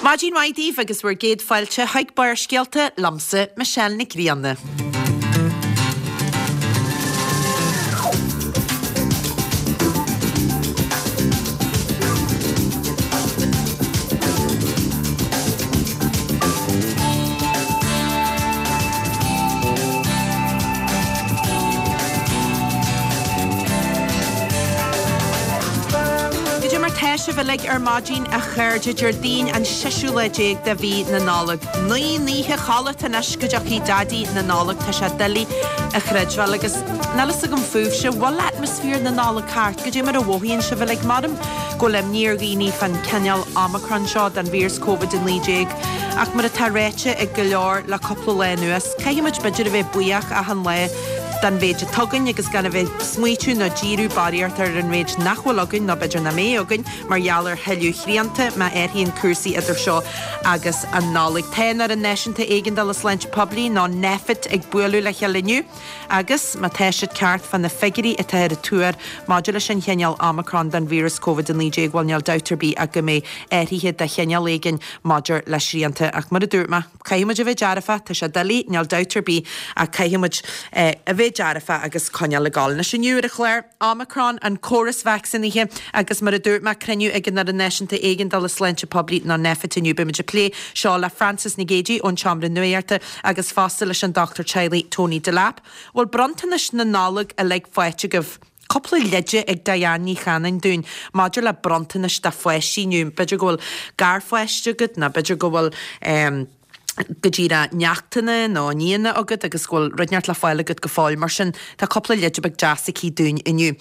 Maidin mhaith daoibh agus bhur gcéad fáilte chuig Barrscéalta liomsa, Michelle Nic Grianna. Goidé mar tá sibh uilig ar maidin, a chairde, Déardaoin an seisiú lá déag de mhí na Nollag. Naoi n-oíche chodlata anois go dtiocfaidh Daidí na Nollag, tá sé doiligh a chreidbheáil agus níl fhios agam fúibhse, bhfuil atmaisféar na Nollag thart? Goidé mar a mhothaíonn sibh uilig? Maram go bhfuil imní ar dhaoine fán cineál Omicron seo den víreas Covid-19 ach mar atá ráite ag go leor le cúpla lá anuas, caithfidh muid b'fhéidir a bheith buíoch achan lá den mhéid atá againn agus gan a bheith ag smaoitiú nó díriú barraíocht ar an mhéid nach bhfuil againn nó b'fhéidir nach mbeidh againn mar gheall ar thuilleadh srianta má athraíonn cúrsaí idir seo agus an Nollaig. Tá an Fhoireann Náisiúnta Éigeandála Sláinte Poiblí nó Nphet ag bualadh le chéile inniu agus má tá siad ceart fá na figiúirí atá ar an tuar maidir leis an chineál Omicron den víreas Covid-19 bhuel níl dabht ar bith ach go mbeidh athruithe de chineál éigin maidir le srianta ach mar a dúirt mé, Caithfidh muid a bheith dearfach, tá sé doiligh, níl dabht ar bith, ach caithfidh muid a bheith dearfach agus coinneáil ag gabháil. Anois inniu ar an chlár, Omicron, an córas vacsaínithe agus mar a dúirt mé, cruinniú ag an Fhoireann Náisiúnta Éigeandála Sláinte Poiblí nó Nphet inniu. Beidh muid ag plé seo le Frances Nic Géadaigh ón tSeomra Nuachta agus fosta leis an dochtúir teaghlaigh Tony Delap. Bhfuil bronntanais na Nollag uilig faighte agaibh? Cúpla leide ag Diane Ní Chanainn dúinn maidir le bronntanais do pháistí inniu. B'fhéidir go bhfuil garpháiste agat nó b'fhéidir go bhfuil go díreach neachtanna nó nianna agat agus go bhfuil rud inteacht le fáil agat go fóill. Mar sin, tá cúpla leide beag deas aici dúinn inniu.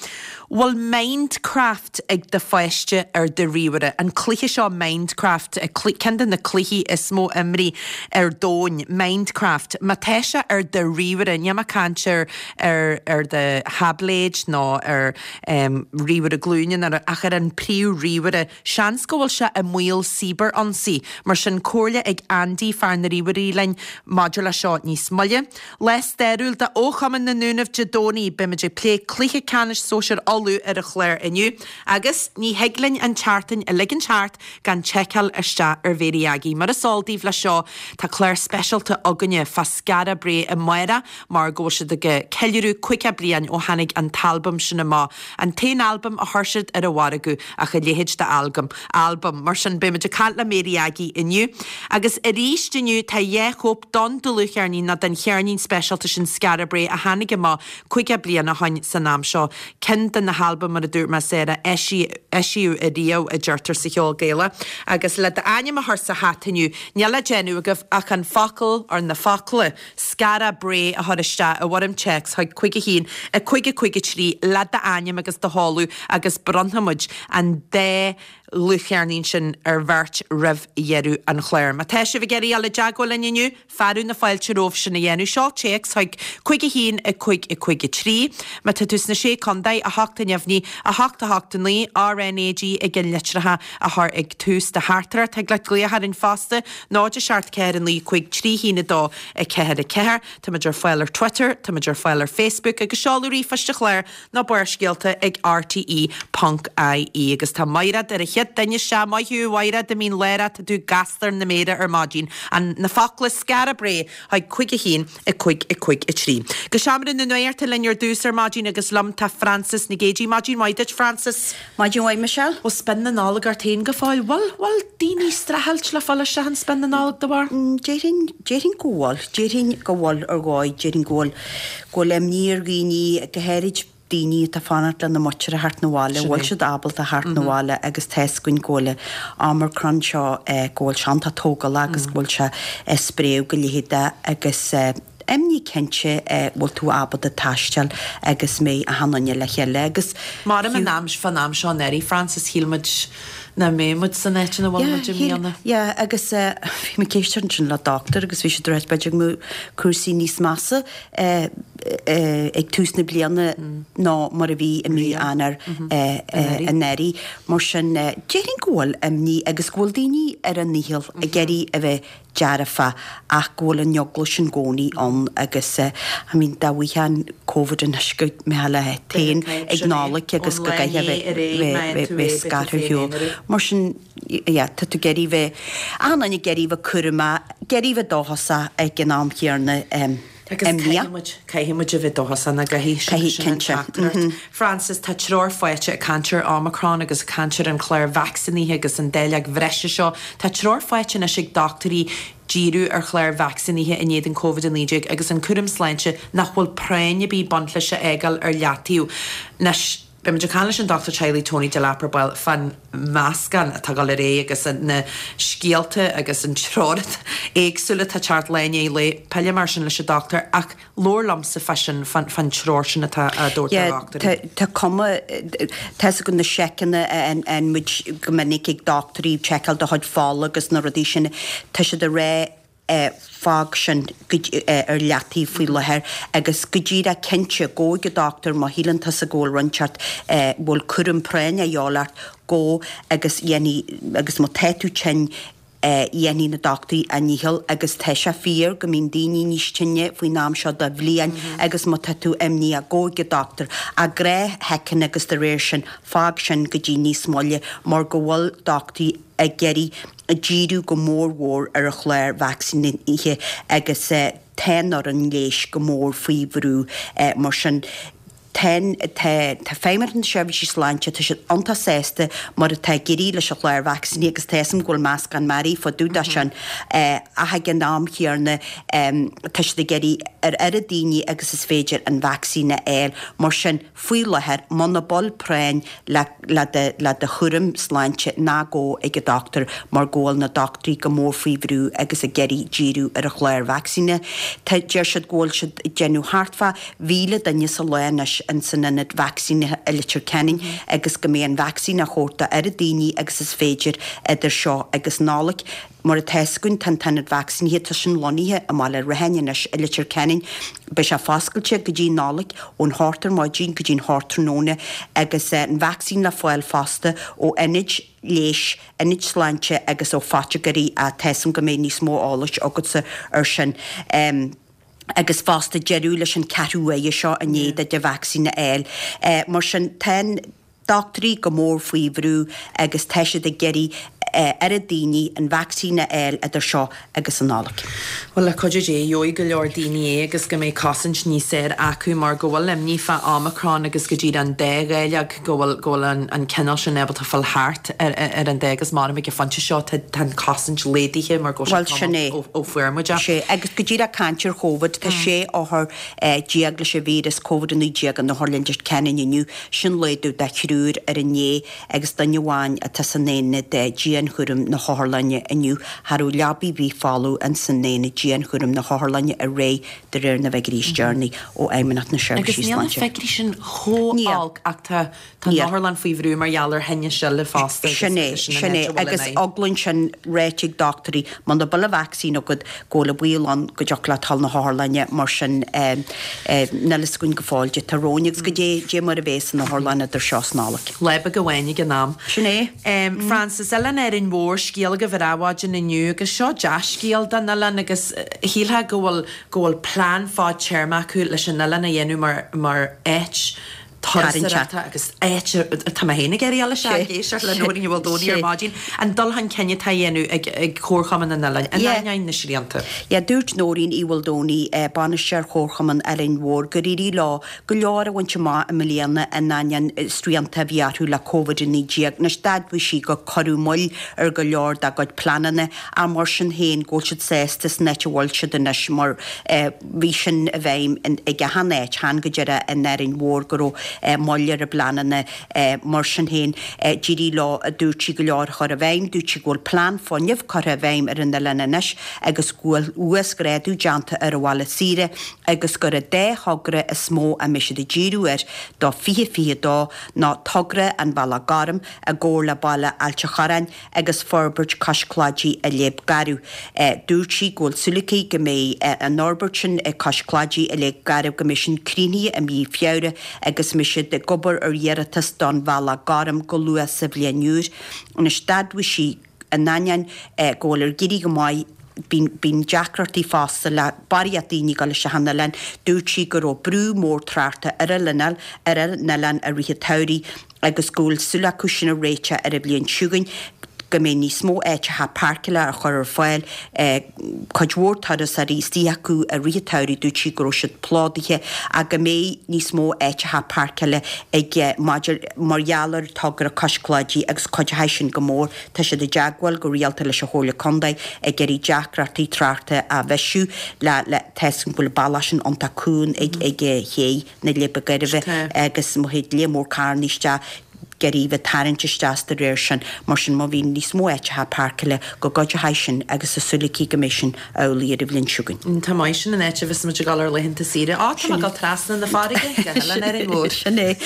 Bhfuil Mindcraft ag do pháiste ar do ríomhaire? An cluiche seo Mindcraft, ceann de na cluichí is mó imrithe ar domhain, Mindcraft. Má tá sé ar do ríomhaire, níl mé ag caint ar ar ar do tháibléid nó ar ríomhaire glúine nó ach ar an príomh-ríomhaire. Seans go bhfuil sé i mbaol cibear-ionsaí. Mar sin, comhairle ag Andy, fear na ríomhairí linn maidir le seo níos moille. Lá stairiúil do Chumann na nDúnaibh Dé Domhnaigh. Beimid ag plé cluiche ceannais sóisir Uladh ar an chlár inniu. Agus ní thig linn an tseachtain a ligint thart gan tseiceáil isteach ar Mhéirí Aggie. Mar is eol daoibh leis seo, tá clár speisialta againne fá Skara Brae amárach mar go bhfuil siad ag ceiliúradh 50 bliain ó tháinig an t-albam sin amach, an t-aon albam a chuir siad ar an mhargadh, ach a leithéid de algam, albam. Mar sin, beidh muid ag caint le Mary Aggie inniu. Agus arís inniu, tá dhá chóip don dlúthcheirnín, nó den cheirnín speisialta sin Skara Brae a tháinig amach 50 bliain ó shoin san am seo. Ceann de na halbaim, mar a dúirt mé, Sarah, eisíodh ariamh, a deirtear sa cheol Gaelach. Agus le d'ainm a chur sa hata inniu, níl le déanamh agaibh ach an focal, or na focla, Skara Brae a chur isteach i bhfoirm téacs chuig 5 1 5 5 3 le d'ainm agus do sheoladh agus bronnfaidh muid an dá dhlúthcheirnín sin ar bheirt roimh dheireadh an chláir. Má tá sibh ag iarraidh dul i dteagmháil linn inniu, fearadh na fáilte romhaibh sin a dhéanamh. Seol téacs chuig 5 1 5 5 3. Má tá tú sna Sé Contae, 8 neamhní, 8 8 9, RnaG i gceannlitreacha a chur ag tús do theachtaireacht. Thig leat glaoch orainn fosta, 0 7 4 9 5 3 1 2 4 4. Táimid ar fáil ar Twitter, táimid ar fáil ar Facebook agus seoladh ríomhphoist an chláir ná Barrscéalta ag rte ponc ie. Agus tá Maighread ar an chéad duine isteach. Maith thú a Mhaighread, i mín Lárach, tá tú gasta ar na méara ar maidin. An na focla Skara Brae chuig 5 1 5 5 3. Go seomra na nuachta linn ar dtús ar maidin agus liom tá Frances Nic Géadaigh. Maidin mhaith duit Frances. Maidin mhaith Michelle. Bhfuil spion na Nollag ort féin go fóill? Bhfuil, bhfuil daoine ag streachailt le fáil isteach in spion na Nollag de bharr? Déarfainn, déarfainn go bhfuil. Déarfainn go bhfuil ar dhóigh, déarfainn go bhfuil, go bhfuil imní ar dhaoine, go háirid daoine atá ag fanacht lena muintir a theacht 'na bhaile, bhfuil siad ábalta a theacht 'na bhaile agus tá 'fhios againn go bhfuil an Omicron seo, go bhfuil sé iontach tógálach agus go bhfuil sé ag spréadh go leitheadach agus imní cinnte bhfuil tú ábalta taisteal agus mbeidh achan duine le chéile agus Maram an am, fán am seo anuraidh, Frances, shíl muid nach mbeadh muid san áit ina bhfuil muid i mbliana. Yeah, agus bhí mé ag éisteacht ansin le doctor agus bhí siad ag ráit b'fhéidir go mbeadh cúrsaí níos measa ag tús na bliana ná mar a bhí i mí Eanáir anuraidh. Mar sin, déarfainn go bhfuil imní agus go bhfuil daoine ar a ndícheall ag iarraidh a bheith dearfa ach go bhfuil an eagla sin i gcónaí ann agus I mean dá bhfaighfeá an. Covid anois go mbeifeá leat féin ag Nollaig agus go gcaithfeá bheith bheith scartha ar shiúl. Mar sin, yeah, tá tú ag iarraidh bheith, achan duine ag iarraidh bheith cúramach, ag iarraidh bheith dóchasach ag an am chéanna. Agus caithfidh muid, caithfidh muid a bheith dóchasach nach gcaithfidh, sin, sin an teachtaireacht. Frances, tá treoir faighte ag caint ar Omicron agus ag caint ar an chlár vacsaínithe agus an dáileog bhreise seo. Tá treoir faighte anois ag dochtúirí díriú ar chláir vacsaínithe in éadan Covid-19 agus an cúram sláinte nach bhfuil práinn ar bith ag baint leis a fhágáil ar leataobh. Anois, Beidh muid ag caint leis an Dochtúir Teaghlaigh Tony Delap ar ball fán meascán atá ag dul ar aghaidh agus na scéalta agus an treoir éagsúil atá ag teacht lá i ndiaidh lae. Pillfidh mé air sin leis an dochtúir ach labhair liomsa fá sin, fán treoir sin atá á dtabhairt do dhochtúirí. Tá cuma, tá fhios agat na seiceanna a fhaigheann muid go minic ag dochtúirí, seiceáil do chuid fola agus na rudaí sin, tá siad ag rá fág sin ar leataobh faoi láthair agus go díreach cinnte, gabh ag an dochtúir má shíleann tusa go bhfuil rud inteacht, go bhfuil cúram práinne a dhíobháil ort, gabh agus dhéanfaidh, agus má tá tú tinn, dhéanfaidh na dochtúirí a ndícheall agus tá sé fíor go mbíonn daoine níos tinne faoin am seo de bhliain agus má tá tú imníoch, gabh ag an dochtúir. Ach gnáthsheiceanna agus de réir sin, fág sin go dtí níos moille mar go bhfuil dochtúirí ag iarraidh díriú go mór mhór ar an chlár vacsaínithe agus tá an fhoireann leighis go mór faoi bhrú. Mar sin, tá, tá Feidhmeannacht na Seirbhísí Sláinte, tá siad iontach sásta mar atá ag éirí leis an chlár vacsaínithe agus tá fhios agam go bhfuil meascán mearaí fá dtaobh de sin ach ag an am chéanna tá siad ag iarraidh ar oiread daoine agus is féidir an vacsaín a fháil. Mar sin, Faoi láthair, muna bhfuil práinn le le do le do chúram sláinte, ná gabh ag an dochtúir mar go bhfuil na dochtúirí go mór faoi bhrú agus ag iarraidh díriú ar an chlár vacsaíne. Tá, deir siad go bhfuil siad ag déanamh thart fá 1,000 duine sa lá anois in san ionad vacsaínithe i Leitir Ceanainn agus go mbeidh an vacsaín á thabhairt do oiread daoine agus is féidir idir seo agus Nollaig. Mar atá fhios againn, tá an t-ionad vacsaínithe, tá sin lonnaithe i mBaile Ratháin anois i Leitir Ceanainn. Beidh sé foscailte go dtí Nollaig, ón hocht ar maidin go dtí'n hocht tráthnóna agus an vacsaín le fáil fosta ó ionaid leighis, ionaid sláinte agus ó phoitigéirí ach tá fhios agam go mbeidh níos mó eolais agatsa ar sin. Agus fosta deireadh leis an ceathrú uaire seo i ndiaidh duit an vacsaín a fháil. Mar sin, tá an. dochtúirí go mór faoi bhrú agus tá siad ag iarraidh oiread daoine an vacsaín a fháil idir seo agus an Nollaig. Bhuel, le cuidiú Dé, gheobhaidh go leor daoine é agus go mbeidh cosaint níos fearr acu mar go bhfuil imní fá Omicron agus go díreach an dá dháileog, go bhfuil, go bhfuil an, an cineál sin ábalta fáil thart ar, ar an dá agus maram ag an phointe seo tá, tá an chosaint laghdaithe mar go bhfuil sé Bhuel, sin é. tamall ó, ó fuair muid é. Sé, agus go díreach caint ar Chóvid, tá 16 othar leis an víreas Covid-19 in Otharlann Leitir Ceanainn inniu. Sin laghdú de thriúr ar inné agus duine amháin atá san aonad dianchúraim na hotharlainne inniu. Cha raibh leabaidh ar bith folamh ins an aonad dianchúraim na hotharlainne aréir de réir na bhfigiúirí is deireanaí ó Fheidhmeannacht na Agus Seirbhísí níl na Sláinte. figiúirí sin chomh Níl. olc ach tá Tá an Níl. otharlann faoi bhrú mar gheall ar thinnis eile fosta agus Sin é, agus sin an sin áit é. a bhfuil an Agus fhadhb. eagla ansin ráite ag dochtúirí, muna bhfuil an vacsaín agat, go bhfuil an baol ann go dtiocfadh leat dhul na hotharlainne, mar sin níl fhios againn go fóill caidé atá romhainn agus goidé, goidé mar a bheas an otharlann idir seo is Nollaig. Lá beag amháin ag an am. Sin é. Frances, Oileán Árainn Mhór, scéal agaibh ar Adhmhaidin inniu agus seo dea-scéal don oileán agus shílfeá go bhfuil, go bhfuil plean fadtéarma acu leis an oileán a dhéanamh mar, mar áit turasóireachta agus áit atá mé féin ag iarraidh a dhul isteach ag éisteacht le Nóirín Ní Mhaoldomhnaigh ar maidin, an dul chun cinn atá á dhéanamh ag Comharchumann an Oileáin, in ainneoin na srianta. Yeah, dúirt Nóirín Uí Mhaoldomhnaigh, Bainisteoir Chomharchumann Árainn Mhór, gur éirigh leo go leor a bhaint amach i mbliana in ainneoin srianta a bhí orthu le Covid-19. Anois, d'admhaigh sí gur cuireadh moill ar go leor dá gcuid pleananna ach mar sin féin go bhfuil siad sásta san áit a bhfuil siad anois mar bhí sin i bhfeidhm ag achan áit, chan go díreach in Árainn Mhór go raibh moill ar a bpleananna. Mar sin féin, d'éirigh leo, a dúirt sí, go leor a chur i bhfeidhm. Dúirt sí go bhfuil plean fuinnimh curtha i bhfeidhm ar an oileán anois agus go bhfuil uasghrádú déanta ar an bhaile saoire agus gur an dá thogra is mó a mbeidh siad ag díriú air do 2022 ná togra an Bhealaigh Ghoirm i gcomhar le baile Ailt a' Chorráin agus forbairt cois Claidí i Léib Garbh. Dúirt sí go bhfuil súil aici go mbeidh an fhorbairt sin cois Claidí i Léib Garbh go mbeidh sin críochnaithe i mí Feabhra agus mbeidh siad ag obair ar iarratas don Bhealach Gorm go luath sa bhliain úr. Anois d'admhaigh sí in ainneoin go bhfuil ar éirigh go maith. Bíonn, bíonn deacrachtaí fosta le barraíocht daoine ag dul isteach an oileán. Dúirt sí go raibh brú mór tráchta ar an oileán, ar an oileán i rith an tsamhraidh agus go bhfuil súil acu sin a réiteach ar an bhliain seo chugainn, go mbeidh níos mó áiteacha páirceála á chur ar fáil. Cuid mhór turasóirí istigh acu i rith an tsamhraidh, dúirt sí go raibh siad plódaithe ach go mbeidh níos mó áiteacha páirceála ag maidir mar gheall ar togra Cois Cláidí agus cuideoidh sin go mór. Tá siad i dteagmháil go rialta leis an Chomhairle Contae ag iarraidh deacrachtaí tráchta a bhisiú le le tá 'fhios agam go bhfuil an bealach sin iontach cúng ag ag Ché na Leidhbe Gairbhe agus má théid lear mór carranna isteach ag iarraidh bheith tarraingt isteach de réir sin mar sin má bhíonn níos mó áiteacha páirceála go gcuideoidh sin agus tá súil aici go mbeidh sin amhlaidh ar an bhliain seo chugainn. Tá maith sin an áit a bheas muid ag dul ar laethanta saoire. Á, tá mé ag dul trasna na farraige go hOileán Árainn Mhór. Sin é.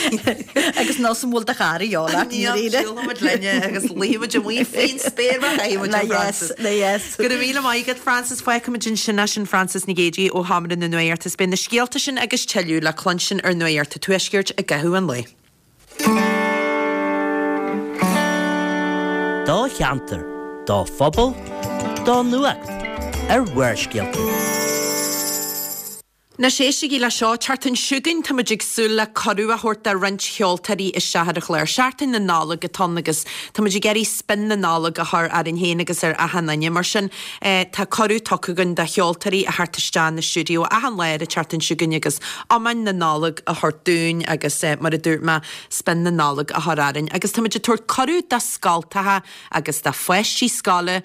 Agus nós an bhfuil do chara dheo leat i ndáiríre. Siúlfaidh muid linne agus luífidh muid amuigh faoin spéir mar chaithfidh muid a Frances. Le yes. Go raibh míle maith agat Frances. Fágfaimid ansin é sin Frances Nic Géadaigh ó Sheomra na Nuachta. Is beidh na scéalta sin agus tuilleadh le cluinstin ar Nuacht an Tuaiscirt i gcaitheamh an lae. Do cheantar, do phobal, do nuacht ar Bharrscéalta. Anois éistigí le seo, tseachtain seo chugainn tá muid ag súil le cuireadh a thabhairt do roinnt cheoltóirí isteach ar an chlár. Seachtain na Nollag atá ann agus tá muid ag iarraidh spion na Nollag a chur orainn féin agus ar achan duine. Mar sin tá cuireadh tugtha againn do cheoltóirí a theacht isteach na stiúideo achan lá ar an tseachtain seo chugainn agus iomainn na Nollag a thabhairt dúinn agus mar a dúirt mé, spion na Nollag a chur orainn. Agus tá muid ag tabhairt cuireadh do scoltacha agus do pháistí scoile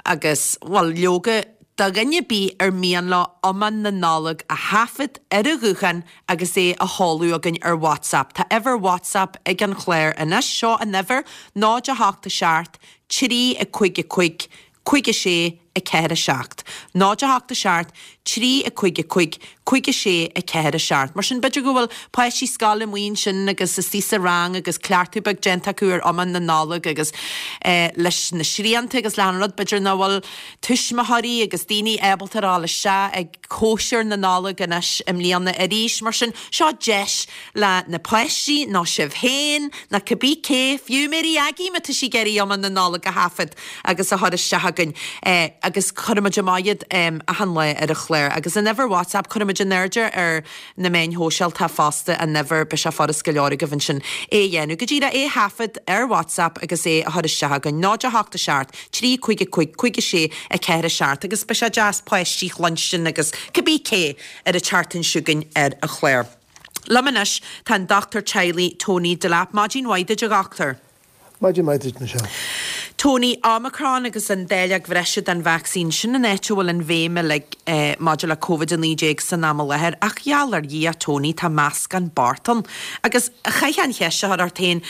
agus, bhuel, leoga, do dhuine ar bith ar mian leo iomann na Nollag a thaifead ar a ghuthán agus é a sheoladh chugainn ar WhatsApp. Tá uimhir WhatsApp ag an chlár anois. Seo an uimhir, 0 8 7 3 5 5 5 6 4 7. 0 8 7 3 5 5 5 6 4 7. Mar sin, b'fhéidir go bhfuil páistí scoile amuigh ansin agus istigh sa rang agus cleachtadh beag déanta acu ar iomann na Nollag agus leis na srianta agus le achan rud, b'fhéidir nach bhfuil tuismitheoirí agus daoine ábalta a ghabháil isteach ag cóisir na Nollag anois i mbliana arís. Mar sin, seo deis le na páistí, nó sibh féin, nó cibé cé, fiú Mary Aggie má tá sí ag iarraidh iomann na Nollag a thaifead agus a chur isteach chugainn agus cuirfidh muid amach iad achan lá ar an chlár. Agus an uimhir WhatsApp, cuirfidh muid in airde ar na meáin shóisialta fosta an uimhir, beidh sé furast go leor agaibh ansin é a dhéanamh. Go díreach é a thaifead ar WhatsApp agus é a chur isteach chugainn, 0 8 7 3 5 5 5 6 4 7 agus beidh sé deas páistí a chluinstin agus cibé cé ar an tseachtain seo chugainn ar an chlár. Liom anois tá an Dochtúir Teaghlaigh Tony Delap. Maidin mhaith duit a dhochtúir. Maidin mhaith duit, Michelle. Tony, Omicron agus an dáileog bhreise den vacsaín, sin an áit a bhfuil an bhéim uilig maidir le Covid-19 san am i láthair. Ach gheall ar Dhia, Tony, tá meascán bocht ann. Agus chaithfeá an cheist a chur ort féin,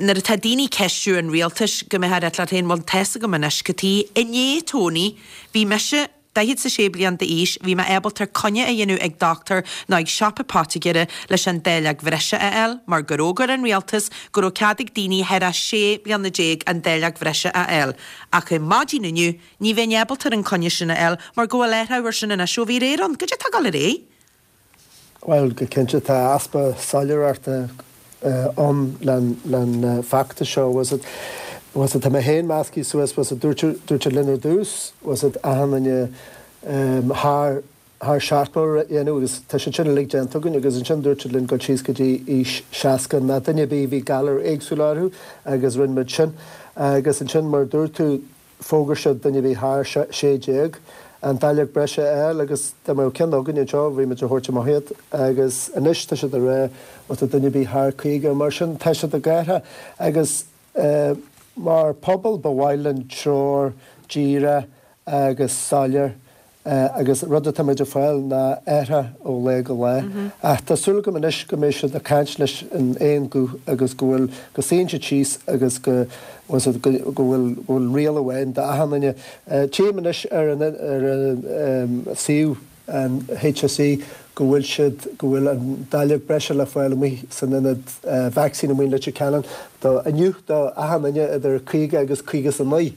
nuair atá daoine ag ceistiú an rialtais, go mbeifeá ag rá leat féin, bhuel, tá's agam anois cad chuige. Inné, Tony, bhí mise, 46 bliain d'aois, bhí mé ábalta coinne a dhéanamh ag dochtúir nó ag siopa poitigéara leis an dáileog bhreise a fháil, mar gur fhógair an rialtas go raibh cead ag daoine thar a 16 bliana an dáileog bhreise a fháil. Ach ar maidin inniu, ní bheinn ábalta an coinne sin a fháil mar go bhfuil athrú ar sin anois ó bhí aréir ann. Goidé atá ag dul ar aghaidh? Bhuel, go cinnte, tá easpa soiléireachta ann len feachtas seo. Bhfuil fhios a'd, tá mé féin measctha suas, bhfuil fhios a'd, dúirt, dúirt siad linn ar dtús, bhfuil fhios a'd, achan duine thar, thar 70 a dhéanamh agus tá sé sin uilig déanta againn agus ansin dúirt siad linn dul síos go dtí aois 60 ná duine ar bith a bhí galar éagsúil orthu agus rinne muid sin. Agus ansin mar a dúirt tú, Fógair siad duine a bhí thar 16, an dáileog breise a fháil agus dá mbeadh ceann againn anseo bhí muid a thabhairt amach iad agus anois tá siad ag rá má tá duine ar bith thar 50 mar sin tá siad ag athrú agus mar pobal ba mhaith linn treoir díreach agus soiléir Agus rud atá muid ag fáil ná athrú ó lá go lá. Ach tá súil agam anois go mbeidh siad ag caint leis in aon guth agus go bhfuil, go suíonn siad síos agus go, bhfuil fhios a'd, go bhfuil, go bhfuil riail amháin d'achan duine. Tchím anois ar an, ar an suíomh an HSE go bhfuil siad, go bhfuil an dáileog breise le fáil amuigh san ionad vacsaín amuigh in Leitir Ceanainn do, inniu do achan duine idir 50 agus 59.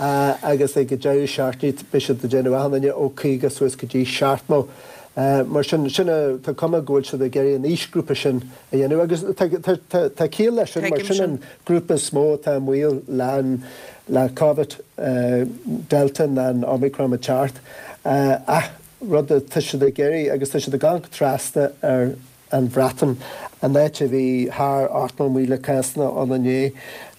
agus ag an deireadh seachtaine beidh siad ag déanamh achan duine ó 50 suas go dtí 70. Mar sin, sin a, tá cuma go bhfuil siad ag iarraidh an aoisghrúpa sin a dhéanamh agus tá, tá, tá, tá ciall leis sin mar sin an grúpa is mó atá i mbaol le an, le Covid, Delta ná an Omicron ag teacht. Ach rud atá siad ag iarraidh agus tá siad ag amharc trasna ar an Bhreatain, an áit a bhí thar 80,000 cásanna ann inné,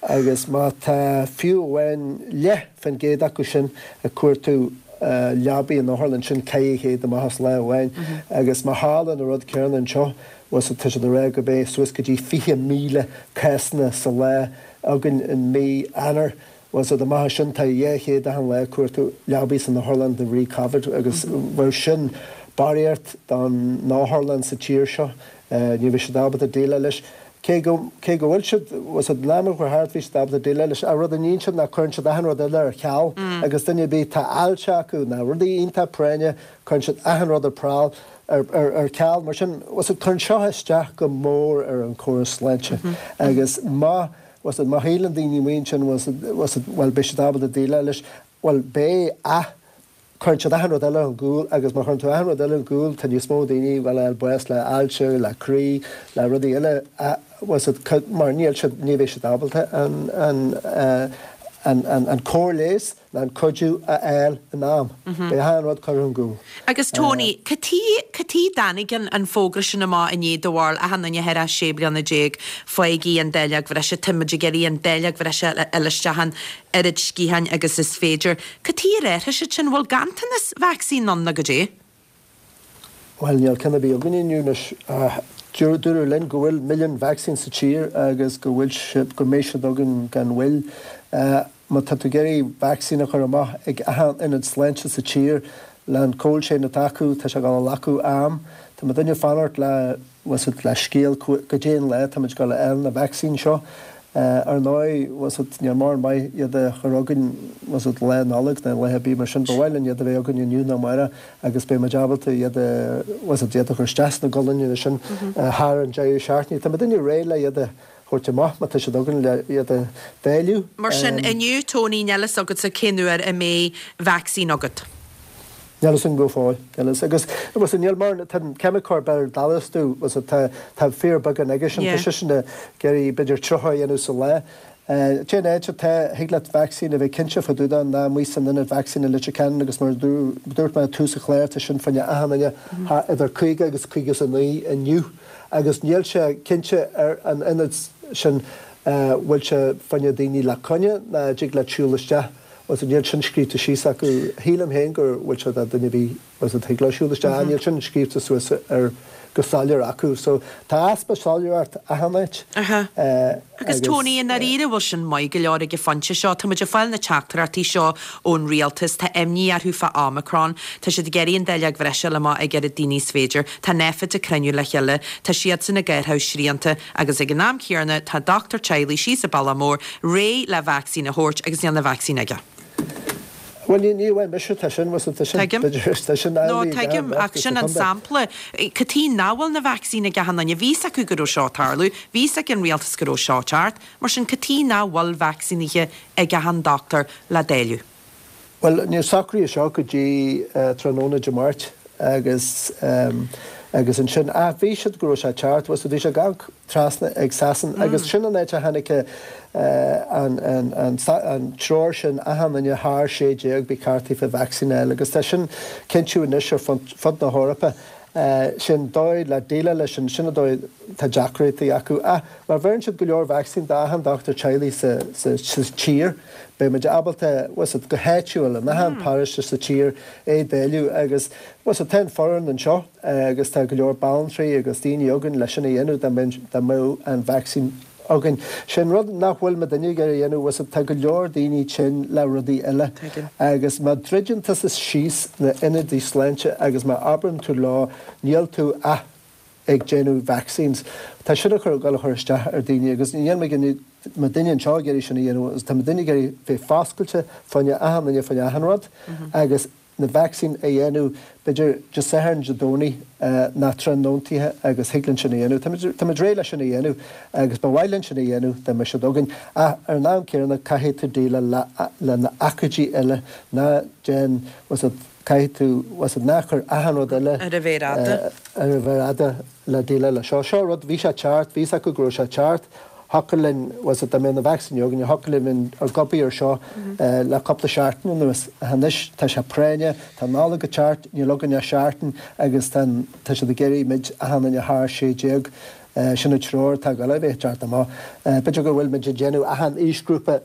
agus má tá fiú amháin leath fán gcéad acu sin ag cuartú leabaí in otharlann, sin 400 amach as lá amháin, agus má tharla an rud céanna anseo, bhuel tá siad ag rá go mbeidh suas go dtí 20,000 cásanna sa lá againn in mí Eanáir. Bhuel so amach as sin tá 200 achan lá ag cuartú leabaí san otharlann de bhrí Covid agus bheadh sin barraíocht don otharlann sa tír seo. Ní bheidh siad ábalta déileáil leis. Cé go, cé go bhfuil siad, bhuel so an am a chuaigh thart bhí siad ábalta déileáil leis. Ach rud a níonn siad ná cuireann siad achan rud eile ar ceal agus duine ar bith, tá ailse acu ná rudaí iontach práinne, cuireann siad achan rud ar prál, ar, ar, ar ceal. Mar sin, bhuel so cuireann seo isteach go mór ar an chóras sláinte agus má, Bhuel so, má shíleann daoine amuigh ansin, bhuel so, bhuel so, bhuel beidh siad ábalta déileáil leis, bhuel beidh ach cuireann siad achan rud eile chun cúil agus má chuireann tú achan rud eile chun cúil tá níos mó daoine bhuel ag fáil bás le ailse, le croí, le rudaí eile bhuel so, mar níl siad, ní bheidh siad ábalta an, an, an, an, an cóir leighis ná an cuidiú a fháil in am. Beidh achan rud curtha chun cúil. Agus Tony, cad chuige, cad chuige dtáinig an an fógra sin amach inné do bharúil, achan duine thar 16 bliana, faighigí an dáileog bhreise, tá muid ag iarraidh an dáileog bhreise a fháil isteach an oiread sciatháin agus is féidir. Cad chuige ar athraigh siad sin? Bhfuil ganntanas vacsaín ann nó goidé? Bhuel, níl ceann ar bith againn inniu anois. Dúradh linn go bhfuil milliún vacsaín sa tír agus go bhfuil siad, go mbeidh siad againn gan mhoill. Má tá tú ag iarraidh vacsaín a chur amach ag achan ionad sláinte sa tír, le an cold chain atá acu, tá sé ag dul a ghlacadh am. Tá muidinne ag fanacht le. bhfuil fhios agat, le scéal goidé an lá táimid ag dul a fháil na vacsaín seo. Ar ndóigh, bhfuil fhios agat, níl mórán maith iad a chur chugainn, bhfuil fhios agat, Lá Nollag nó lá ar bith mar sin. Ba mhaith linn iad a bheith againn inniu nó amárach agus beidh muid ábalta iad a, bhfuil fhios agat, iad a chur isteach sna gualainne sin thar an deireadh seachtaine. Tá muidinne réidh le iad a thabhairt amach má tá siad againn le iad a dháileadh. Mar sin, inniu, Tony, níl fhios agatsa cén uair a mbeidh vacsaín agat. Níl fhios agam go fóill. Níl fhios. Agus, bhfuil fhios agat, níl mar, tá an ceimiceoir Bill Dallas do, bhfuil fhios agat, tá, tá fíorbheagán aige sin, tá seisean ag iarraidh b'fhéidir 30 a dhéanamh sa lá. Cén áit atá, thig leat vacsaín a bheith cinnte fá dtaobh de ná amuigh san ionad vacsaín i Leitir Ceanainn agus mar a dúirt mé ag tús an chláir tá sin fá choinne achan duine idir 50 agus 59 inniu agus níl sé cinnte ar an ionad sin bhfuil sé fá choinne daoine le coinne ná dtig leat siúl isteach. Bhfuil fhios agat, níl sin scríobhta síos acu. Shílim féin go bhfuil sé do duine ar bith, bhfuil fhios agat, thig leo siúl isteach. Níl sin scríobhta suas ar go soiléir acu. So tá easpa soiléireacht achan áit. Aha. Agus Tony, i ndáiríre, bhfuil sin maith go leor ag an phointe seo? Tá muid ag fáil na teachtaireachtaí seo ón rialtas, tá imní orthu fá Omicron, tá siad ag iarraidh an dáileog bhreise a fháil amach ag oiread daoine is féidir, tá Nphet ag cruinniú le chéile, tá siadsan ag athrú srianta, Agus ag an am céanna tá dochtúir teaghlaigh síos i Bealach Mór réidh le vacsaín a thabhairt agus níl na vacsaín aige. Bhuel, ní, ní amháin mise, tá sin, bhfuil tá sin, Tuigim. b'fhéidir, tá sin No, amhlaidh ag tuigim, ach sin an sampla. Cad chuige nach bhfuil na vacsaín ag achan duine? Bhí fhios acu go raibh seo ag tarlú, bhí fhios ag an rialtas go raibh seo ag teacht, mar sin cad chuige nach bhfuil vacsaínithe ag achan dochtúir le dáileadh? Bhuel, níor socraíodh seo go dtí tráthnóna Dé Máirt agus agus ansin, ach bhí siad go raibh sé ag teacht, bhfuil fhios agat, bhí sé ag amharc trasna ag Sasain agus sin an áit a tháinig an an an an treoir sin achan duine thar 16 ba cheart daofa vacsaín a fháil agus tá sin cinntiú anois ar fud na hEorpa. Sin dóigh le déileáil leis sin, sin an dóigh tá deacrachtaí acu. Ach má bheireann siad go leor vacsaín d'achan dochtúir teaghlaigh sa sa tír, beidh muid ábalta, bhfuil fhios agat, go háitiúil, in achan paróiste sa tír é dáileadh agus, bhfuil fhios agat, tá an foireann anseo agus tá go leor banaltraí agus daoine againn leis sin a dhéanamh dá mbeadh, dá mbeadh an vacsaín againn. Sé an rud nach bhfuil muidinne ag iarraidh a dhéanamh, bhfuil fhios agat, tá go leor daoine tinn le rudaí eile agus má druideann tusa síos na ionadaí sláinte agus má abrann tú leo níl tú ach ag déanamh vaccines. Tá sin ag dul a chur isteach ar daoine agus níl muidinne anseo ag iarraidh sin a dhéanamh agus tá muidinne ag iarraidh bheith foscailte fá choinne achan duine fá choinne achan rud agus. na vacsaín a dhéanamh b'fhéidir Dé Sathairn, Dé Domhnaigh ná tráthnóntaithe agus thig linn sin a dhéanamh. Táimid, táimid réidh leis sin a dhéanamh agus ba mhaith linn sin a dhéanamh dá mbeadh siad againn. Ach ar an am céanna caithfidh tú déileáil le, le na hócáidí eile, ná déan, bhfuil 's agat, caithfidh tú, bhfuil 's agat, ná cuir achan rud eile Ar an mhéar fhada. ar an mhéar fhada le déileáil le seo. Seo rud, bhí sé ceart, bhí 's acu go raibh sé ceart. Thiocfadh linn, bhfuil 's agat, dá mbeadh na vacsaíní againn, thiocfadh linn bheith ag obair ar seo le cúpla seachtain anuas. Ach anois tá sé práinneach, tá an Nollaig ag teacht, níl againn ach seachtain agus tá an, tá siad ag iarraidh muid, achan duine thar 16, sin an treoir atá ag dul a bheith ag teacht amach. B'fhéidir go bhfuil muid ag déanamh achan aoisghrúpa,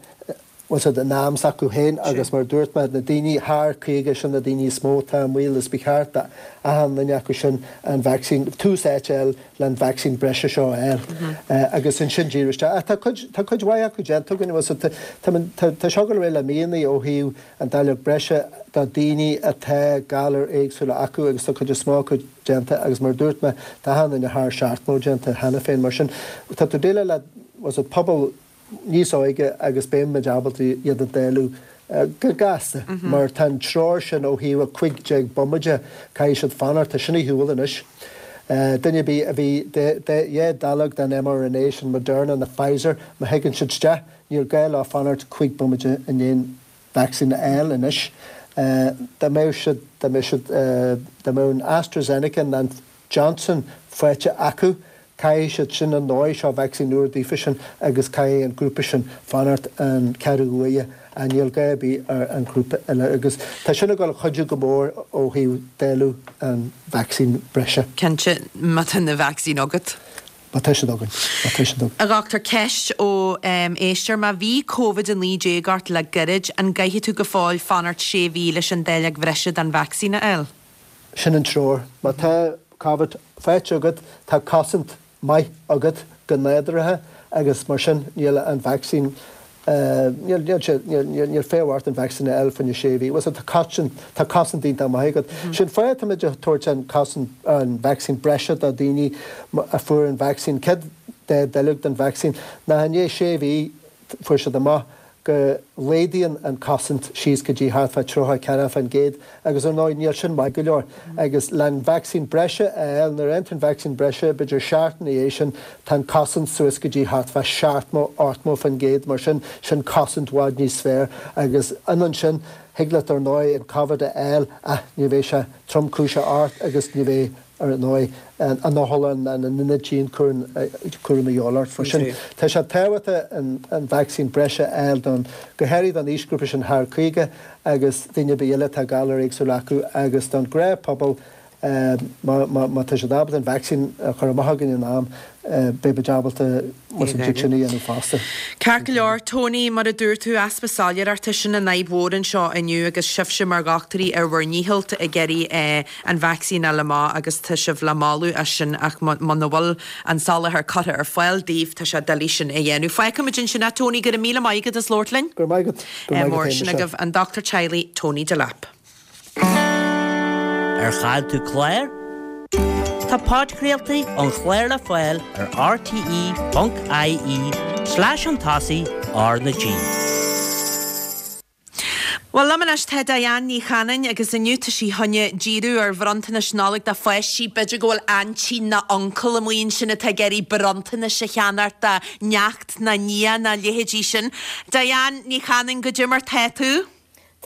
bhfuil 's agat, in am s'acu féin agus mar a dúirt mé, na daoine thar 50, sin na daoine is mó atá i mbaol is ba cheart d'achan duine acu sin an vacsaín, tús áite a fháil le an vacsaín breise seo a fháil agus ansin díriú isteach. Ach tá cuid, tá cuid mhaith acu déanta againn, bhfuil 's agat, tá, tá, tá seo ag dul ar aghaidh le míonna ó thaobh an dáileog breise do daoine atá galair éagsúla acu agus tá cuid is mó acu déanta agus mar a dúirt mé, tá achan duine thar 70 déanta cheana féin. Mar sin, tá tú ag déileáil le, bhfuil 's agat, pobal níos óige agus beidh muid ábalta iad a dáileadh go gasta mar tá an treoir sin ó thaobh 15 bomaite, caithfidh siad fanacht, tá sin ar shiúl anois. Duine ar bith a bhí dhá dáileog den mRNA sin Moderna nó Pfizer, má thigeann siad isteach, níl gá leo fanacht 5 bomaite i ndiaidh an vacsaín a fháil anois. Dá mbeadh siad, dá mbeadh siad, dá mbeadh an AstraZeneca nó an Johnson faighte acu. Caithfidh siad sin ar ndóigh, seo vacsaín úr daofa sin agus caithfidh an grúpa sin fanacht an ceathrú uaire ach níl gá ar bith ar an ghrúpa eile agus tá sin ag dul a chuidiú go mór ó thaobh dáileadh an vacsaín breise. Cinnte, má tá na vacsaín agat. Má tá siad againn. Má tá siad againn. A dhochtúir, ceist ó éisteoir, má bhí Covid-19 ort le gairid, an gcaithfidh tú go fóill fanacht sé mhí leis an dáileog bhreise den vacsaín a fháil? Sin an treoir. Má tá Covid faighte agat, tá cosaint maith agat go nádúrtha agus mar sin níl an vacsaín, níl, níl sé, níl, níl feidhm ort an vacsaín a fháil fá choinne sé mhí. Bhuel, tá cosaint, tá cosaint iontach maith agat. Sin fáth atáimid ag tabhairt an cosaint, an vacsaín breise do daoine a fuair an vacsaín, céad dá dáileog den vacsaín, ná i ndiaidh sé mhí fuair siad amach go laghdaíonn an cosaint síos go dtí thart fá 34% agus ar ndóigh níl sin maith go leor agus le an vacsaín breise a fháil, nuair a fhaigheann tú an vacsaín breise b'fhéidir seachtain ina dhiaidh sin tá an cosaint suas go dtí thart fá 70, 80% mar sin, sin cosaint i bhfad níos fearr agus ionann sin, thig leat ar ndóigh an Covid a fháil ach ní bheidh sé tromchúiseach ort agus ní bheidh ar ndóigh, an otharlann ná an ionad dianchúraim a dhíobháil ort. Mar sin, tá sé tábhachtach an vacsaín breise a fháil don, go háirithe don aoisghrúpa sin thar 50 agus daoine ar bith eile atá galair éagsúla acu agus don ghnáthphobal má tá siad ábalta an vacsaín a chur amach againn in am, beidh muid ábalta an chuid sin a dhéanamh fosta. Ceart go leor, Tony, mar a dúirt tú, easpa soiléireachta, sin an fhadhb mhór anseo inniu agus sibhse mar dhochtúirí ar bhur ndícheall ag iarraidh an vacsaín a fháil amach agus tá sibh le moladh as sin ach muna bhfuil an soláthar curtha ar fáil daoibh tá sé doiligh sin a dhéanamh. Fágfaimid ansin é Tony, go raibh míle maith agat as labhairt linn. Go raibh maith agat. Go raibh maith agat féin, Sin agaibh an dochtúir teaghlaigh Tony Delap. Ar chaill tú clár? Tá podchraoltaí an chláir le fáil ar rte.ie slash an tosaigh R na G. Bhuel, liom anois tá Diane Ní Chanainn agus inniu tá sí chun díriú ar bhronntanais Nollag do pháistí. B'fhéidir go bhfuil aintín nó uncail amuigh ansin atá ag iarraidh bronntanais a cheannacht do neacht nó nia nó a leithéidí sin. Diane Ní Chanainn, goidé mar tá tú?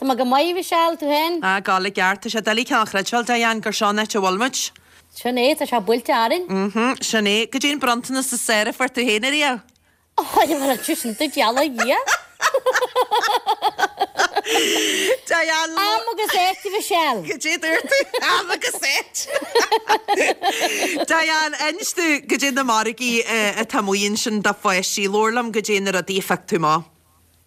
Tá mé go maith, a Mhichelle, tú féin? Ah, ag gabháil i gceart. Tá sé doiligh cineál a chreidbheáil, Diane, gur seo an áit a bhfuil muid. Sin é, tá sé buailte orainn. Mhm, sin é. Goidé an bronntanas is fearr a fuair tú féin ariamh? Ó, mar an sin duit, gheall ar Dhia. Diane, Am agus áit, a Mhichelle. Goidé a dúirt tú? Am agus áit. Diane, inis domh goidé na margaí atá amuigh ansin do pháistí. Labhair liom goidé na rudaí a phioc tú amach.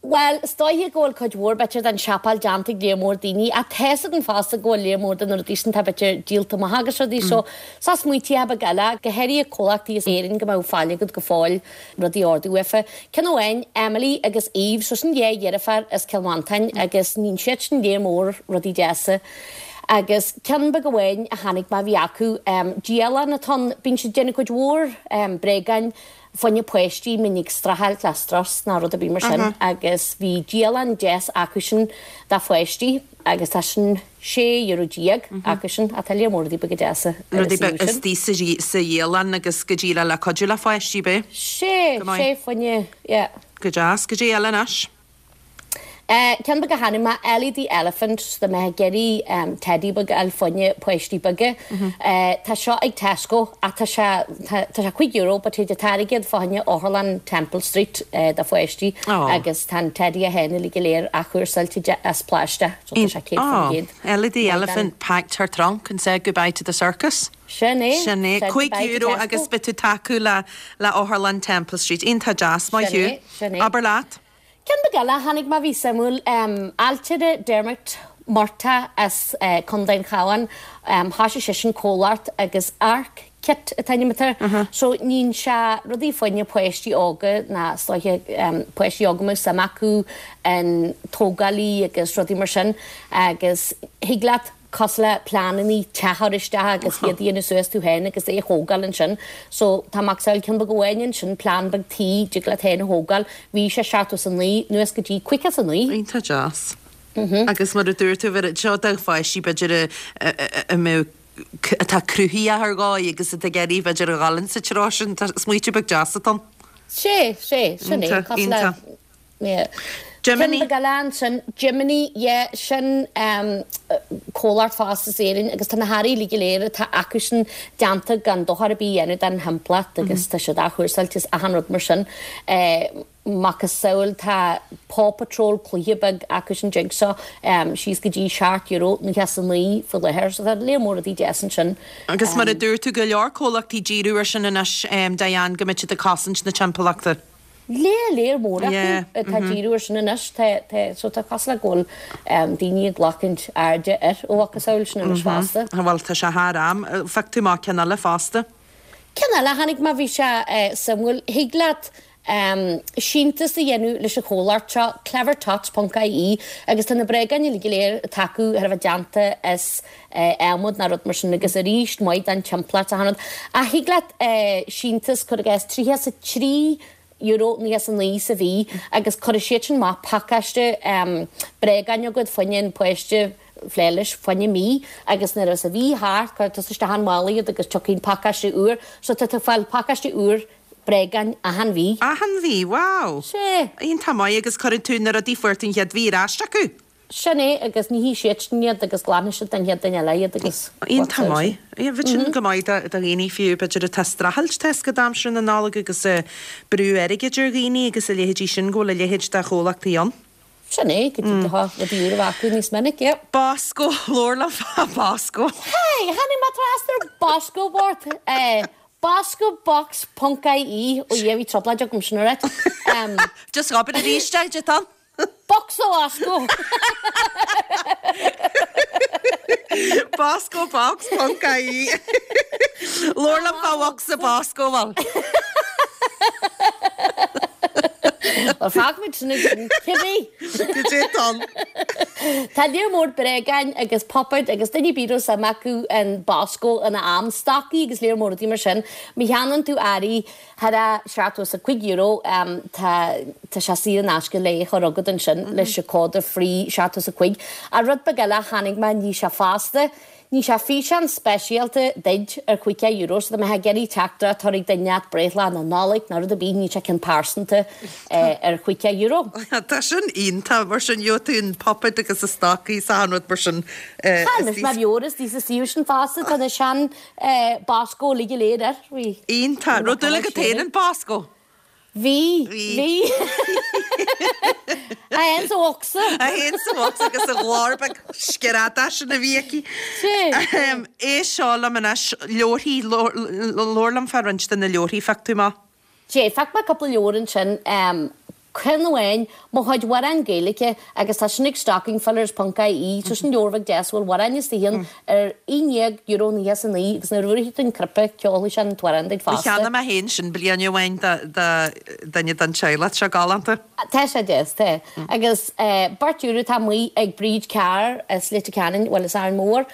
Bhuel, is dóiche go bhfuil cuid mhór, b'fhéidir, den siopail déanta ag léar mór daoine, ach tá's againn fosta go bhfuil léar mór de na rudaí sin atá, b'fhéidir, díolta amach agus rudaí so, so smaointíocha beaga eile, go háirithe comhlachtaí as Éirinn go mbeadh fáil agat go fóill rudaí a ordú uafa. Ceann amháin, Emily agus Eve, so sin dhá dheirfiúr as Cill Mhantáin agus níonn siad sin léar mór rudaí deasa. Agus ceann beag amháin a chonaic mé a bhí acu, dialann atá ann, bíonn siad ag déanamh cuid mhór bréagáin. Fá choinne páistí mbíonn ag streachailt le strus ná rud ar bith mar sin agus bhí dialann deas acusan do pháistí agus tá sin €16 acusan ach tá lear mór rudaí beaga deasa ar an suíomh sin. Rudaí istigh sa dhialann agus go díreach le cuidiú le pháistí, b'é? Sé, sé fá choinne, yeah. Go deas, goidé eile anois. Ceann beag a chonaic mé, Ellie the Elephant, so dá mbeifeá ag iarraidh teddy beag a fháil fá choinne páistí beaga. Tá seo ag Tesco ach tá sé, tá sé €5 but théid an t-airgead fá choinne Otharlann Temple Street do pháistí agus tá an teddy é féin uilig go léir athchúrsáilte as plaisteach so tá sé 100%. Ellie the Elephant packed her trunk and said goodbye to the circus. Sin é. Sin é. €5 agus beidh tú tacú le le Otharlann Temple Street. Iontach deas, maith thú. Sin é, sin é. Abair leat. Ceann beag eile a chonaic mé a bhí suimiúil, ailtire Dermot Murtagh as Contae an Chabháin, thoisigh seisean comhlacht agus Ark Kit an t-ainm atá air. So níonn sé rudaí fá choinne páistí óga ná is dóiche páistí óga a mbeadh suim acu in tógáil agus rudaí mar sin agus thig leat cosúil le pleanannaí teach a chur isteach agus iad a dhéanamh suas tú féin agus é a thógáil ansin. So tá macasamhail ceann beag amháin ansin, plean beag tí, dtig leat féin a thógáil. Bhí sé 79 anuas go dtí 59. Iontach deas. Agus mar a dúirt tú, bheir seo do pháistí b'fhéidir a mbeadh, atá cruthaitheach ar dhóigh agus atá ag iarraidh b'fhéidir a dhul insa treo sin. Tá smaoitiú beag deas atá ann. Sé, sé, sin é. Iontach, Cosúil le iontach. Yeah. Jiminy. Ceann beag eile ansin, Jiminy, yeah, sin comhlacht fosta as Éirinn agus tá na hearraí uilig go léir atá acusan déanta gan dochar ar bith a dhéanamh don thimpeallacht agus tá siad athchúrsáilte is achan rud mar sin. Macasamhail tá Paw Patrol cluiche beag acusan dtig seo síos go dtí €7.99 faoi láthair so tá lear mór rudaí deas ansin. Agus mar a dúirt tú, go leor comhlachtaí ag díriú ar sin anois, Diane, go mbeidh siad ag cosaint na timpeallachta. Lear, lear mór acu atá ag díriú ar sin anois. Tá, tá, so tá cosúil le go bhfuil daoine ag glacaint airde air ó mhacasamhail sin anois fosta. Bhuel, tá sé thar am. Phioc tú amach ceann eile fosta. Ceann eile a chonaic mé, bhí sé suimiúil. Thig leat síntiús a dhéanamh leis an chomhlacht seo, clevertots ponc ie, agus tá na bréagáin uilig go léir atá acu thar a bheith déanta as adhmad ná rud mar sin agus arís maith don timpeallacht achan rud. Ach thig leat síntiús cuir i gcás €33.99 sa mhí agus cuirfidh siad sin amach pacáiste bréagáin agat fá choinne an páiste plé leis fá choinne mí agus nuair a bheas an mhí thart cuirfidh tusa isteach an mála iad agus tiocfaidh an pacáiste úr so tá tú ag fáil pacáiste úr bréagáin achan mhí. Achan mhí, wow! Sea. Iontach maith agus cuireann tú na rudaí a fuair tú an chéad mhí ar ais acu? Sin é, agus nífidh siad sin iad agus glanfaidh siad don chéad duine eile iad agus Iontach maith. Bheadh sin go maith do dhaoine fiú, b'fhéidir atá ag streachailt tá a fhios agat aimsir na Nollag agus brú airgid ar dhaoine agus a leithéidí sin, go bhfuil a leithéid de chomhlachtaí ann. Sin é, go dtí go rudaí úr a bheith acu níos minic, yep. Bosco, labhair liom fá Bosco. Hey, tháinig mé trasna ar Bosco Bort. Boscobox ponc ie, ó Dhia, bhí trioblóid agam sin a rá. Just abair arís é, goidé atá ann. Bocsa Bosco! Bosco Box ponc ie. Labhair liom fá bhocsa Bosco, bhuel. Bhuel, fágfaimid sin ansin, cibé. Goidé atá ann. Tá lear mór bréagáin agus puipéid agus duine ar bith a raibh suim acu in Bosco ina am, stocaí agus lear mór rudaí mar sin. Má cheannaíonn tú earraí Thar €75, tá tá sé saor in aisce le é a chur chugat ansin leis an cód free 75. Ach rud beag eile a chonaic mé, ní sé fosta, ní sé físeán speisialta duid ar €50, so dá mbeifeá ag iarraidh teachtaireacht a chur ag duine leat breithlá na Nollag nó rud ar bith, ní sé ceann pearsanta ar €50. Tá sin iontach, mar sin gheobhaidh tú an puipéad agus na stocaí is achan rud mar sin. Tá anois mar leabhar is sa suíomh sin fosta, tá na sean Bosco uilig go léir air. Bhí. Iontach. Raibh dúil agat féin in Bosco? Bhí. Bhí. É féin sa bhocsa. É féin sa bhocsa agus a ghlór beag screadach sin a bhí aici. Éist seo liom anois, leabharthaí, labhair liom fá roinnt de na leabharthaí a phioc tú amach. Sea, phioc mé cúpla leabhar ansin. Ceann amháin, Mo Chuid Amhrán Gaeilge agus tá sin ag stockingfillers ponc ie, so sin leabhar bheag deas a bhfuil amhráin istigh ann ar €11.99 agus nuair a bhuailfidh tú an cnaipe ceolfaidh sé an t-amhrán duit fosta. Cheannaigh mé féin sin bliain amháin do dhuine den teaghlach, tá sé galánta. Tá sé deas, tá. Agus beirt euro atá amuigh ag Bríd Carr as Leitir Ceanainn, bhuel as Árainn Mhór.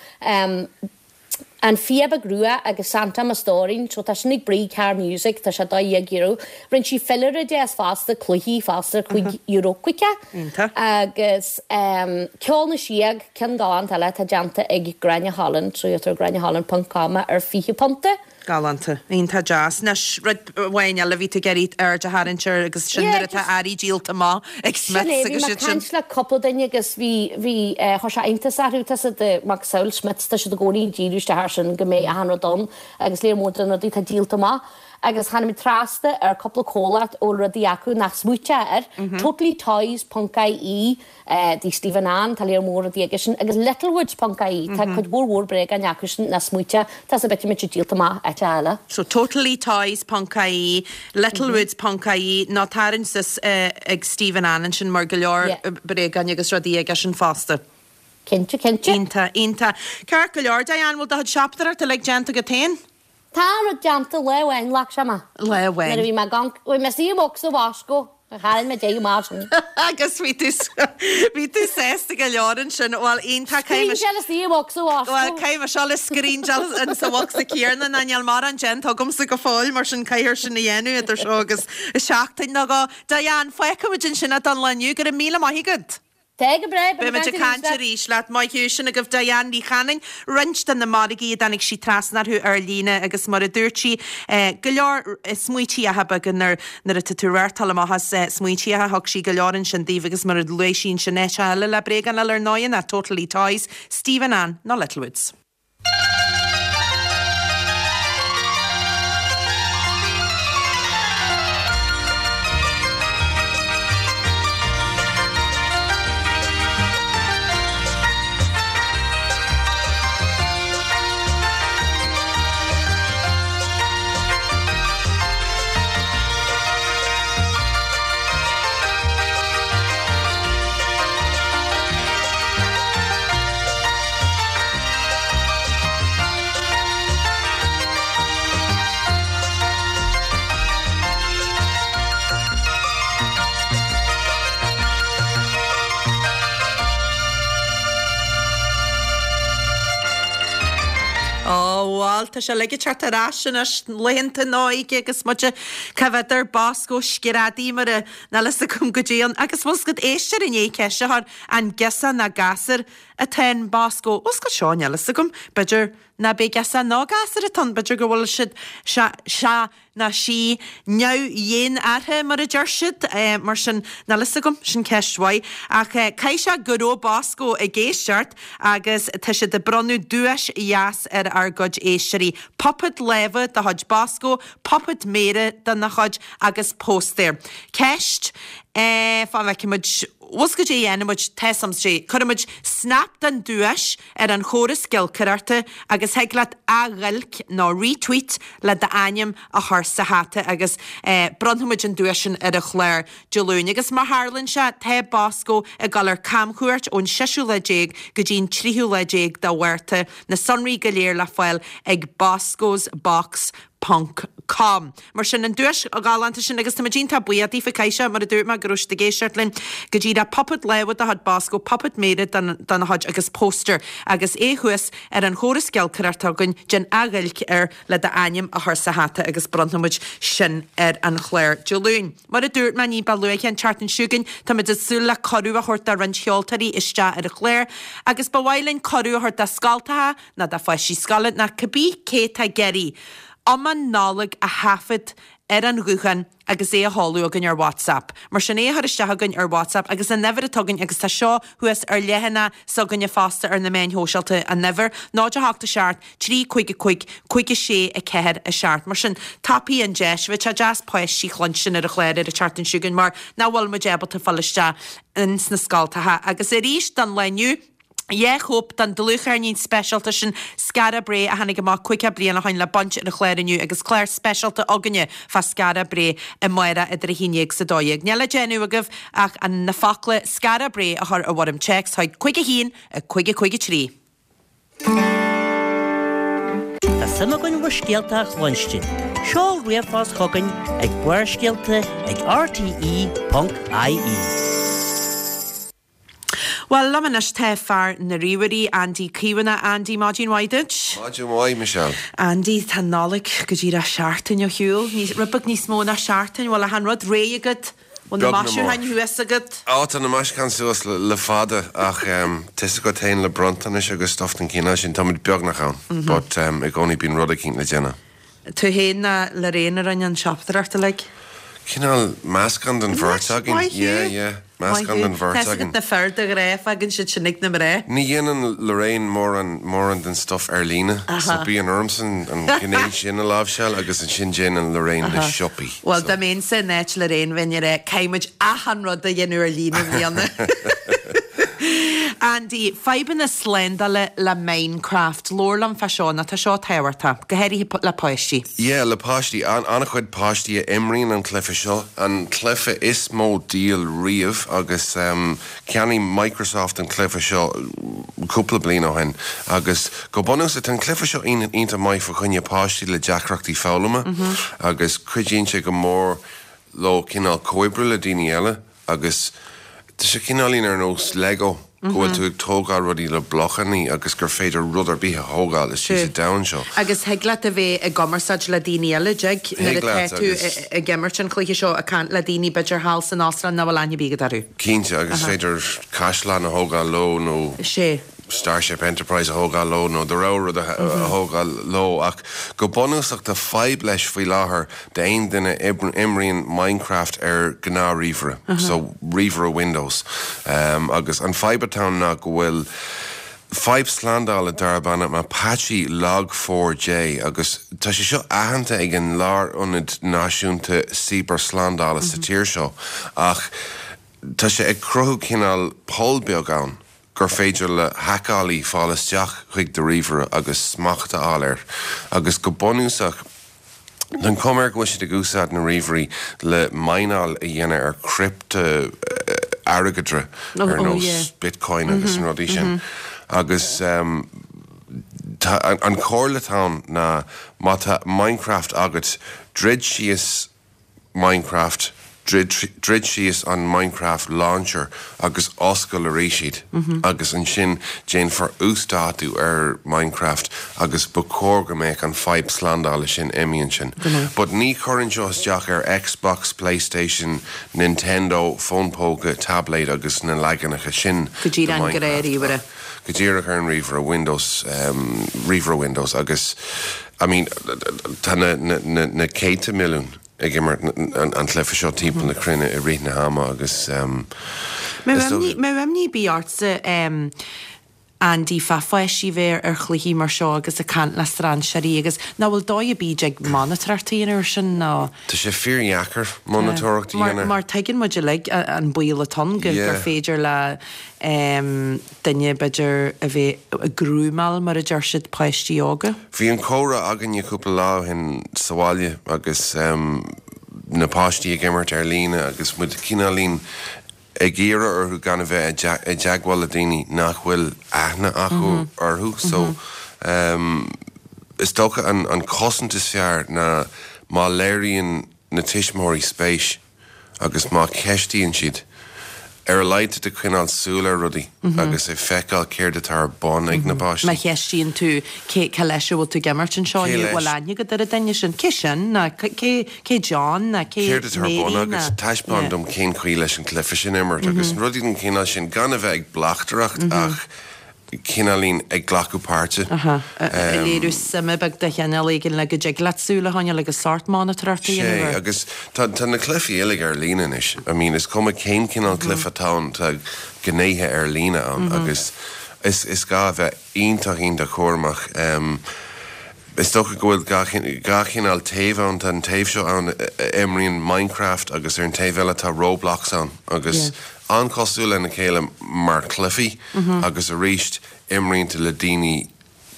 An Fia Beag Rua agus Santa Mo Stóirín, so tá sin ag Brí Carr Music, tá sé €12. Rinne sí filleadh deas fosta, cluichí fosta, €5 caoga. Iontach. Agus Ceol na Síóg, ceann galánta eile atá déanta ag Gráinne Holland, so gheobhaidh tú ar gráinneholland ponc com é ar £20. Galánta. Iontach deas. Anois, rud amháin eile a bhí tú ag iarraidh aird a tharraingt air agus sin Yeah, nuair atá just- earraí díolta amach ag Sin é, Smiths bhí agus mé iad ag sin. caint le cúpla duine agus bhí, bhí, eh, chuir sé iontas orthu, tá siad, eh, macasamhail Smiths, tá siad i gcónaí ag díriú isteach air sin go mbeidh achan rud ann agus léar mór de na rudaí atá díolta amach. Agus tháinig muid trasna ar cúpla comhlacht a bhfuil rudaí acu nach smaoiteá air, totallytoys ponc ie, Dtí Stephen Ann, tá léar mór rudaí aige sin, agus Littlewoods ponc ie, tá cuid mhór mhór bréagáin acu sin nach smaoiteá, tá sa bit muid díolta amach áite eile. So totallytoys ponc ie, Littlewoods ponc ie, nó tarraing suas ag Stephen Ann ansin mar go leor bréagáin agus rudaí aige sin fosta. Cinnte, cinnte. Iontach, iontach. Ceart go leor, Diane, bhfuil do chuid siopadóireachta uilig déanta agat féin? Tá an rud déanta lá amháin, ghlac sé mé. Lá amháin. Nuair a bhí mé gan, bhí mé istigh i mbocsa Bhosco, tharraing mé deireadh mar sin. Agus bhí tú, bhí tú sásta go leor ansin. Bhuel, iontach, caithfidh mé. Scríndeáil istigh i mbocsa Bhosco. Bhuel, caithfidh mé seo le scríndeáil in sa bhocsa céanna ná níl mórán déanta agamsa go fóill, mar sin caithfear sin a dhéanamh idir seo agus seachtain nó dhó. Diane, fágfaimid ansin é don lá inniu. Go raibh míle maith agat. Tá go breá, beidh muid ag caint arís leat. Maith thú, sin agaibh Diane Ní Chanainn, roinnt de na margaí a dtáinig sí trasna orthu ar líne agus mar a dúirt sí, go leor smaointíocha beaga nuair nuair atá tú ag reáchtáil amach as smaointíocha, thug sí go leor ansin daoibh agus mar a luaigh sí ansin áit eile le bréagáin eile ar ndóigh ná Totally Toys, Stephen Ann nó Littlewoods. Ó bhuel, tá sé uilig ag teacht ar ais anois, laethanta na hóige agus muid cá bhfeadar, Bosco, screadaí mar a, níl fhios agam goidé ann. Agus bhfuil 's agat éisteoir i ndiaidh ceist a chur, an girseach ná gasúr atá in Bosco. Bhfuil 's agat seo, níl fhios agam. B'fhéidir ná b'é girseach ná gasúr atá ann, b'fhéidir go bhfuil siad, sé, sé ná sí neamh-dhénártha mar a deir siad. Mar sin, níl fhios agam, sin ceist mhaith. Ach caithfidh sé go raibh Bosco ag éisteacht agus tá siad ag bronnadh duais dheas ar ár gcuid éisteoirí. Puipéad láimhe de chuid Bosco, puipéad méire dena chuid agus póstaer. Ceist, eh, fán bhfeicfidh muid. Bhfuil 's agat goidé a dhéanfaidh muid, tá 'fhios a'm, sé, cuirfidh muid snap den duais ar an chóras giolcaireachta agus thig leat athghiolc nó retweet le d'ainm a chur sa hata agus eh bronnfaidh muid an duais sin ar an chlár Dé Luain. Agus mar tharlaíonn sé, tá Bosco ag dul ar camchuairt ón seisiú lá déag go dtí an tríú lá déag de Mhárta, na sonraí go léir le fáil ag boscosbox ponc com. Mar sin, an duais ghalánta sin agus táimid iontach buíoch daofa, caithfidh sé, mar a dúirt mé, go raibh siad ag éisteacht linn go díreach, puipéad láimhe de chuid Bosco, puipéad méire dena chuid agus póstaer agus é thuas ar an chóras giolcaireachta againn, déan athghiolc air le d'ainm a chur sa hata agus bronnfaidh muid sin ar an chlár Dé Luain. Mar a dúirt mé ní ba luaithe an tseachtain seo chugainn, táimid ag súil le cuireadh a thabhairt do roinnt cheoltóirí isteach ar an chlár agus ba mhaith linn cuireadh a thabhairt do scoltacha, ná do pháistí scoile ná cibé cé atá ag iarraidh iomann Nollag a thaifead ar an ghuthán agus é a sheoladh chugainn ar WhatsApp. Mar sin é a chur isteach chugainn ar WhatsApp agus an uimhir atá againn agus tá seo thuas ar leathanach s'againne fosta ar na meáin shóisialta, an uimhir, 0 8 7 3 5 5 5 6 4 7. Mar sin, tapaigh an deis. Bheadh sé deas páistí a chluinstin ar an chlár ar an tseachtain seo chugainn mar nach bhfuil muid ábalta fáil isteach ins na scoltacha. Agus arís don lá inniu, 2 chóip den dlúthcheirnín speisialta sin Skara Brae a tháinig amach 50 bliain ó shoin le baint ar an chlár inniu agus clár speisialta againne fá Skara Brae amárach idir 11 is 12. Níl le déanamh agaibh ach an na focla Skara Brae a chur i bhfoirm téacs chuig 5 1 5 5 3. Tá suim againn bhur scéalta a chluinstin. Seol ríomhphost chugainn ag barrscéalta ag rte.ie. Bhuel, liom anois tá fear na ríomhairí, Andy Caomhánach. Andy, maidin mhaith duit. Maidin mhaith, Michelle. Andy, tá an Nollaig go díreach seachtain ó shiúl. Rud beag níos mó ná seachtain. Bhfuil achan rud réidh agat? Bhfuil na maisiúcháin thuas agat? Á, tá na maisiúcháin suas le fada ach tá's agat féin le bronntanais agus stuff den chineál sin, táimid beagnach ann. But i gcónaí bíonn rud eicínt le déanamh. Tú féin ná Lorraine a rinne an siopadóireacht uilig? Cineál meascán den bheirt againn. Maith thú. Yeah, yeah. Meascán den bheirt againn. Tá's agat na fir de ghnáth fágann siad sin ag na mná. Ní dhéanann Lorraine mórán, mórán den stuff ar líne. So bíonn ormsa an ghné sin a láimhseáil agus ansin déanann Lorraine na siopaí. Bhuel, dá mbeinnse in áit Lorraine bheinn ag rá caithfidh muid achan rud a dhéanamh ar líne i mbliana. Andy, fadhbanna slándála le Minecraft. Labhair liom fá seo, nó tá seo tábhachtach, go háirithe le páistí. Yeah, le páistí. An-chuid páistí a imríonn an cluiche seo, an cluiche is mó díol riamh agus cheannaigh Microsoft an cluiche seo cúpla bliain ó shin agus go bunúsach tá an cluiche seo iontach maith fá choinne páistí le deacrachtaí foghlama agus cuidíonn sé go mór leo cineál comhoibriú le daoine eile. Agus tá sé cineáilín ar nós Lego, go bhfuil tú ag tógáil rudaí le blochannaí agus gur féidir rud ar bith a thógáil istigh sa domhan seo. Agus thig leat a bheith i gcumarsáid le daoine eile, dtig? Nuair atá tú ag imirt an chluiche seo, ag caint le daoine b'fhéidir thall san Astráil nach bhfuil aithne ar bith agat orthu. Cinnte, agus is féidir caisleán a thógáil leo nó. Sea. Starship Enterprise a thógáil leo nó do rogha rud a thógáil leo ach go bunúsach tá fadhb leis faoi láthair d'aon duine a imríonn Minecraft ar gnáth-ríomhaire, so ríomhaire Windows agus an fadhb atá ann ná go bhfuil fadhb slándála darb ainm Apache Log4j agus tá sé seo aitheanta ag an Lárionad Náisiúnta Cibearshlándála sa tír seo ach tá sé ag cruthú cineál poll beag ann. gur féidir le haiceálaí fáil isteach chuig do ríomhaire agus smacht a fháil air agus go bunúsach tá an chuma air go bhfuil siad ag úsáid na ríomhairí le mineáil a dhéanamh ar criptea-airgeadra ar nós Bitcoin agus na rudaí sin agus tá an chomhairle atá ann ná má tá Minecraft agat druid síos Minecraft, druid síos an Minecraft Launcher agus oscail arís iad agus ansin déanfar uasdátú ar Minecraft agus ba chóir go mbeadh an fadhb slándála sin imithe ansin. But ní chuireann seo isteach ar Xbox, Playstation, Nintendo, fón póca, tabléid agus na leaganacha sin de Minecraft. Go díreach ar an ríomhaire Windows, ríomhaire Windows agus I mean tá na, na, na céadta milliún ag imirt an chluiche seo timpeall na cruinne i rith na hama agus is dócha. Mbeadh imní ar bith ortsa Andy fá pháistí bheith ar chluichí mar seo agus ag caint le strainséirí agus nach bhfuil dóigh ar bith a dtig monatóireacht a dhéanamh air sin nó. Tá sé fíordheacair monatóireacht a dhéanamh. Mar tuigeann muid uilig an baol atá ann gur féidir le duine, b'fhéidir, a bheith ag grúmáil, mar a deir siad, páistí óga. Bhí an comhrá againne cúpla lá ó shin sa bhaile agus na páistí ag imirt ar líne agus muid cineáilín ag iarraidh orthu gan a bheith i dteagmháil le daoine nach bhfuil aithne acu orthu. So is dócha an chosaint is fearr ná má léiríonn na tuismitheoirí spéis agus má cheistíonn siad, ar a laghad tá tú ag coinneáil súil ar rudaí agus ag feiceáil céard atá ar bun ag na páistí. Má cheistíonn tú cé, cé leis a bhfuil tú ag imirt anseo inniu, bhfuil aithne agat ar an duine sin? Cé sin? Nó cé, cé John? Nó cé Céard atá ar bun Mary? agat? Taispeáin dom cén chaoi leis an cluiche sin a imirt agus rudaí den chineál sin, gan a bheith ag bleachtaireacht ach cineáilín ag glacadh páirte. Aha. Ag léiriú suime beag de chineál éigin le go dtig leat súil a choinneáil agus sórt monatóireacht a dhéanamh Sé, air. agus tá tá na cluichí uilig ar líne anois. I mean, is cuma cén cineál cluiche atá ann, tá gnéithe ar líne ann agus is is gá a bheith iontach iontach cúramach. Is dócha go bhfuil dhá chineál taobh ann, tá an taobh seo ann a imríonn Minecraft agus ar an taobh eile tá Roblox ann agus an-chosúil lena chéile mar chluichí agus arís imríonn tú le daoine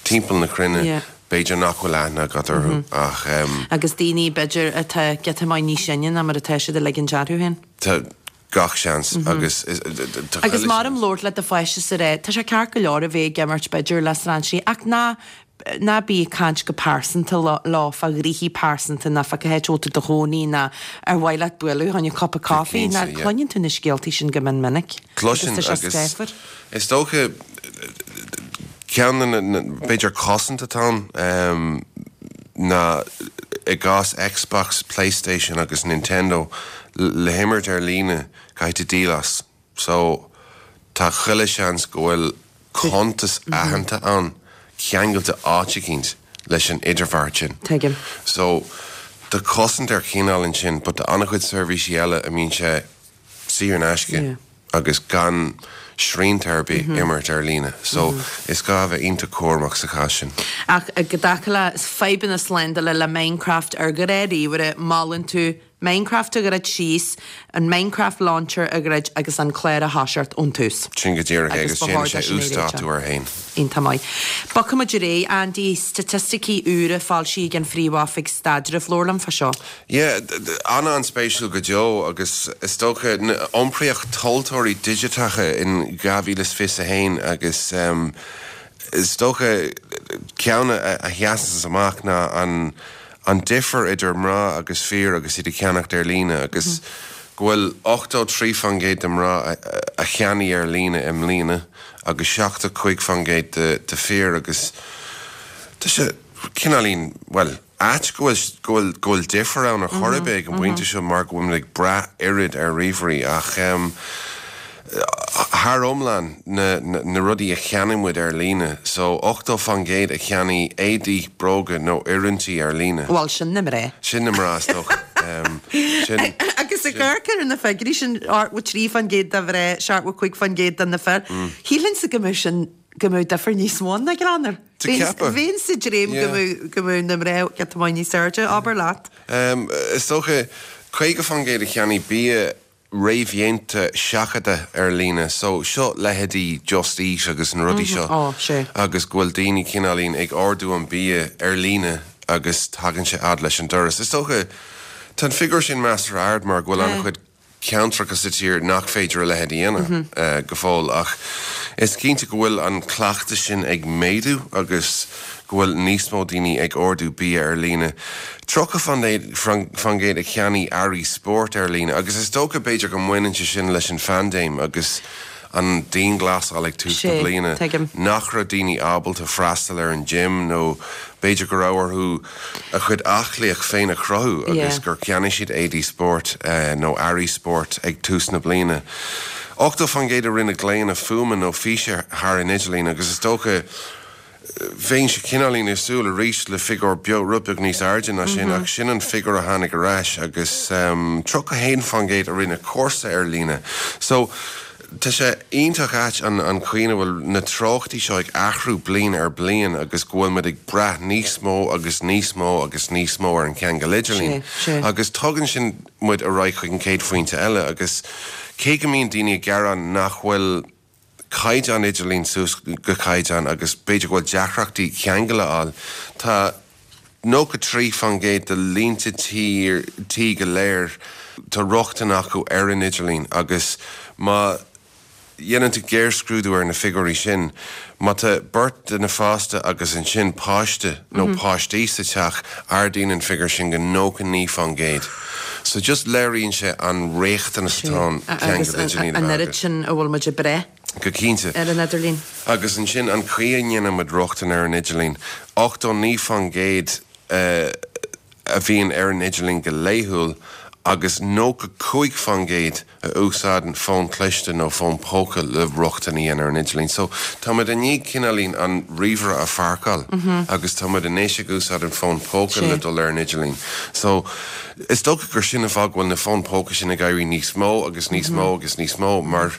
timpeall na cruinne b'fhéidir nach bhfuil aithne agat orthu ach. Agus daoine b'fhéidir atá giota maith níos sine ná mar atá siad ag ligint orthu féin. Tá. Gach seans agus tá Agus maram labhairt le do pháiste is a rá, tá sé ceart go leor a bheith ag imirt b'fhéidir le strainséirí ach ná ná bí ag caint go pearsanta leo fá ghnoithí pearsanta ná fá cá háit a bhfuil tú i do chónaí ná ar mhaith leat bualadh chun cupa caife ná cluineann tú na scéaltaí sin go mion minic agus tá sé scáfar. Is dócha ceann de na b'fhéidir cosaint atá ann ná i gcás Xbox, Playstation agus Nintendo le himirt ar líne caithfidh tú díol as. So tá chuile seans go bhfuil cuntas aitheanta ann ceangailte áit eicínt leis an idirbheart sin. Tuigim. So tá cosaint ar chineál ansin but tá an-chuid seirbhísí eile a mbíonn sé saor in aisce agus gan srianta ar bith imirt ar líne. So is gá a bheith iontach cúramach sa chás sin. Ach i dtaca le fadhbanna slándála le Minecraft ar ghnáth-ríomhaire, molann tú Minecraft a dhruid síos, an Minecraft Launcher a dhruid agus an clár a thoiseacht ón tús. Sin go díreach é agus déanann sé uasdátú air féin. Iontach maith. Bogfaidh muid ar aghaidh, Andy, staitisticí úra foilsithe ag an Phríomh-Oifig Staidrimh. Labhair liom fá seo. Yeah, an-an-spéisiúil go deo agus is dócha iompraíocht tomhaltóirí digiteacha in 2021 agus is dócha ceann a sheasanns amach ná an an difear idir mná agus fir agus iad ag ceannacht ar líne agus go bhfuil 83% de mná a cheannaigh ar líne i mbliana agus 75% de fir agus tá sé cineáilín, bhuel, ait go bhfuil, go bhfuil, go bhfuil difear ann ar chor ar bith ag an bpointe seo mar go bhfuilimid ag brath oiread ar ríomhairí ach thar iomlán na, na rudaí a cheannaigh muid ar líne so 80% a cheannaigh éadaí, bróga nó oiriúintí ar líne. Bhuel, sin na mná. Sin na mná is dócha. Sin. Agus ag amharc ar na figiúirí sin, 83% de mhná, 75% de na fir, shílfinnse go mbeadh sin, go mbeadh difear níos mó ann, a Ghleannair. Bheinn sa dréim go mbeadh, go mbeadh na mná giota maith níos airde, abair leat. Is dócha, 50% a cheannaigh bia réamhdhéanta seachadta ar líne. So, seo leithéidí Just Eat agus na rudaí seo. Ó, sea. Agus go bhfuil daoine cineáilín ag ordú an bia ar líne agus tagann sé fhad leis an doras. Is dócha, tá an figiúr sin measartha ard mar go bhfuil an-chuid ceantracha sa tír nach féidir a leithéid a dhéanamh go fóill ach is cinnte go bhfuil an cleachtas sin ag méadú agus go bhfuil níos mó daoine ag ordú bia ar líne. 30% a cheannaigh earraí spóirt ar líne agus is dócha b'fhéidir go mbaineann sé sin leis an phaindéim agus an dianghlasáil ag tús na bliana nach raibh daoine ábalta freastal ar an gym nó b'fhéidir go raibh orthu a chuid aclaíocht féin a chruthú agus gur cheannaigh siad éadaí spóirt nó earraí spóirt ag tús na bliana. 80% a rinne glaonna fuaime nó físe thar an idirlíon agus is dócha Bheinnse cineáilín ag súil arís le figiúr beag, rud beag níos airde ná sin ach sin an figiúr a tháinig ar ais agus 31% a rinne cúrsa ar líne. So, tá sé iontach ait an an chaoi ina bhfuil na treochtaí seo ag athrú bliain ar bliain agus go bhfuil muid ag brath níos mó agus níos mó agus níos mó ar an cheangal idirlín. Agus tugann sin muid ar aghaidh chuig an chéad phointe eile agus cé go mbíonn daoine ag gearán nach bhfuil caighdeán idirlín suas go caighdeán agus b'fhéidir go bhfuil deacrachtaí ceangal a fháil. Tá 93% de línte tí tí go léir, tá rochtain acu ar an idirlíon agus má dhéanann tú géarscrúdú ar na figiúirí sin, má tá beirt duine fásta agus ansin páiste nó páistí sa teach, ardaíonn an figiúr sin go 99%. So just léiríonn sé an riachtanas atá ann ceangal idirlín a bheith agat. An oiread sin a bhfuil muid ag brath Go cinnte. ar an idirlíon. Agus ansin an chaoi a ndéanann muid rochtain ar an idirlíon, 89% a bhíonn ar an idirlíon go laethúil agus 95% a úsáideann fón cliste nó fón póca le rochtain a dhéanamh ar an idirlíon. So, tá muid i ndiaidh cineáilín an ríomhaire a pháirceáil agus tá muid anois ag úsáid an fón póca le dul ar an idirlíon. So, is dócha gur sin an fáth go bhfuil na fóin póca sin ag éirí níos mó agus níos mó agus níos mó mar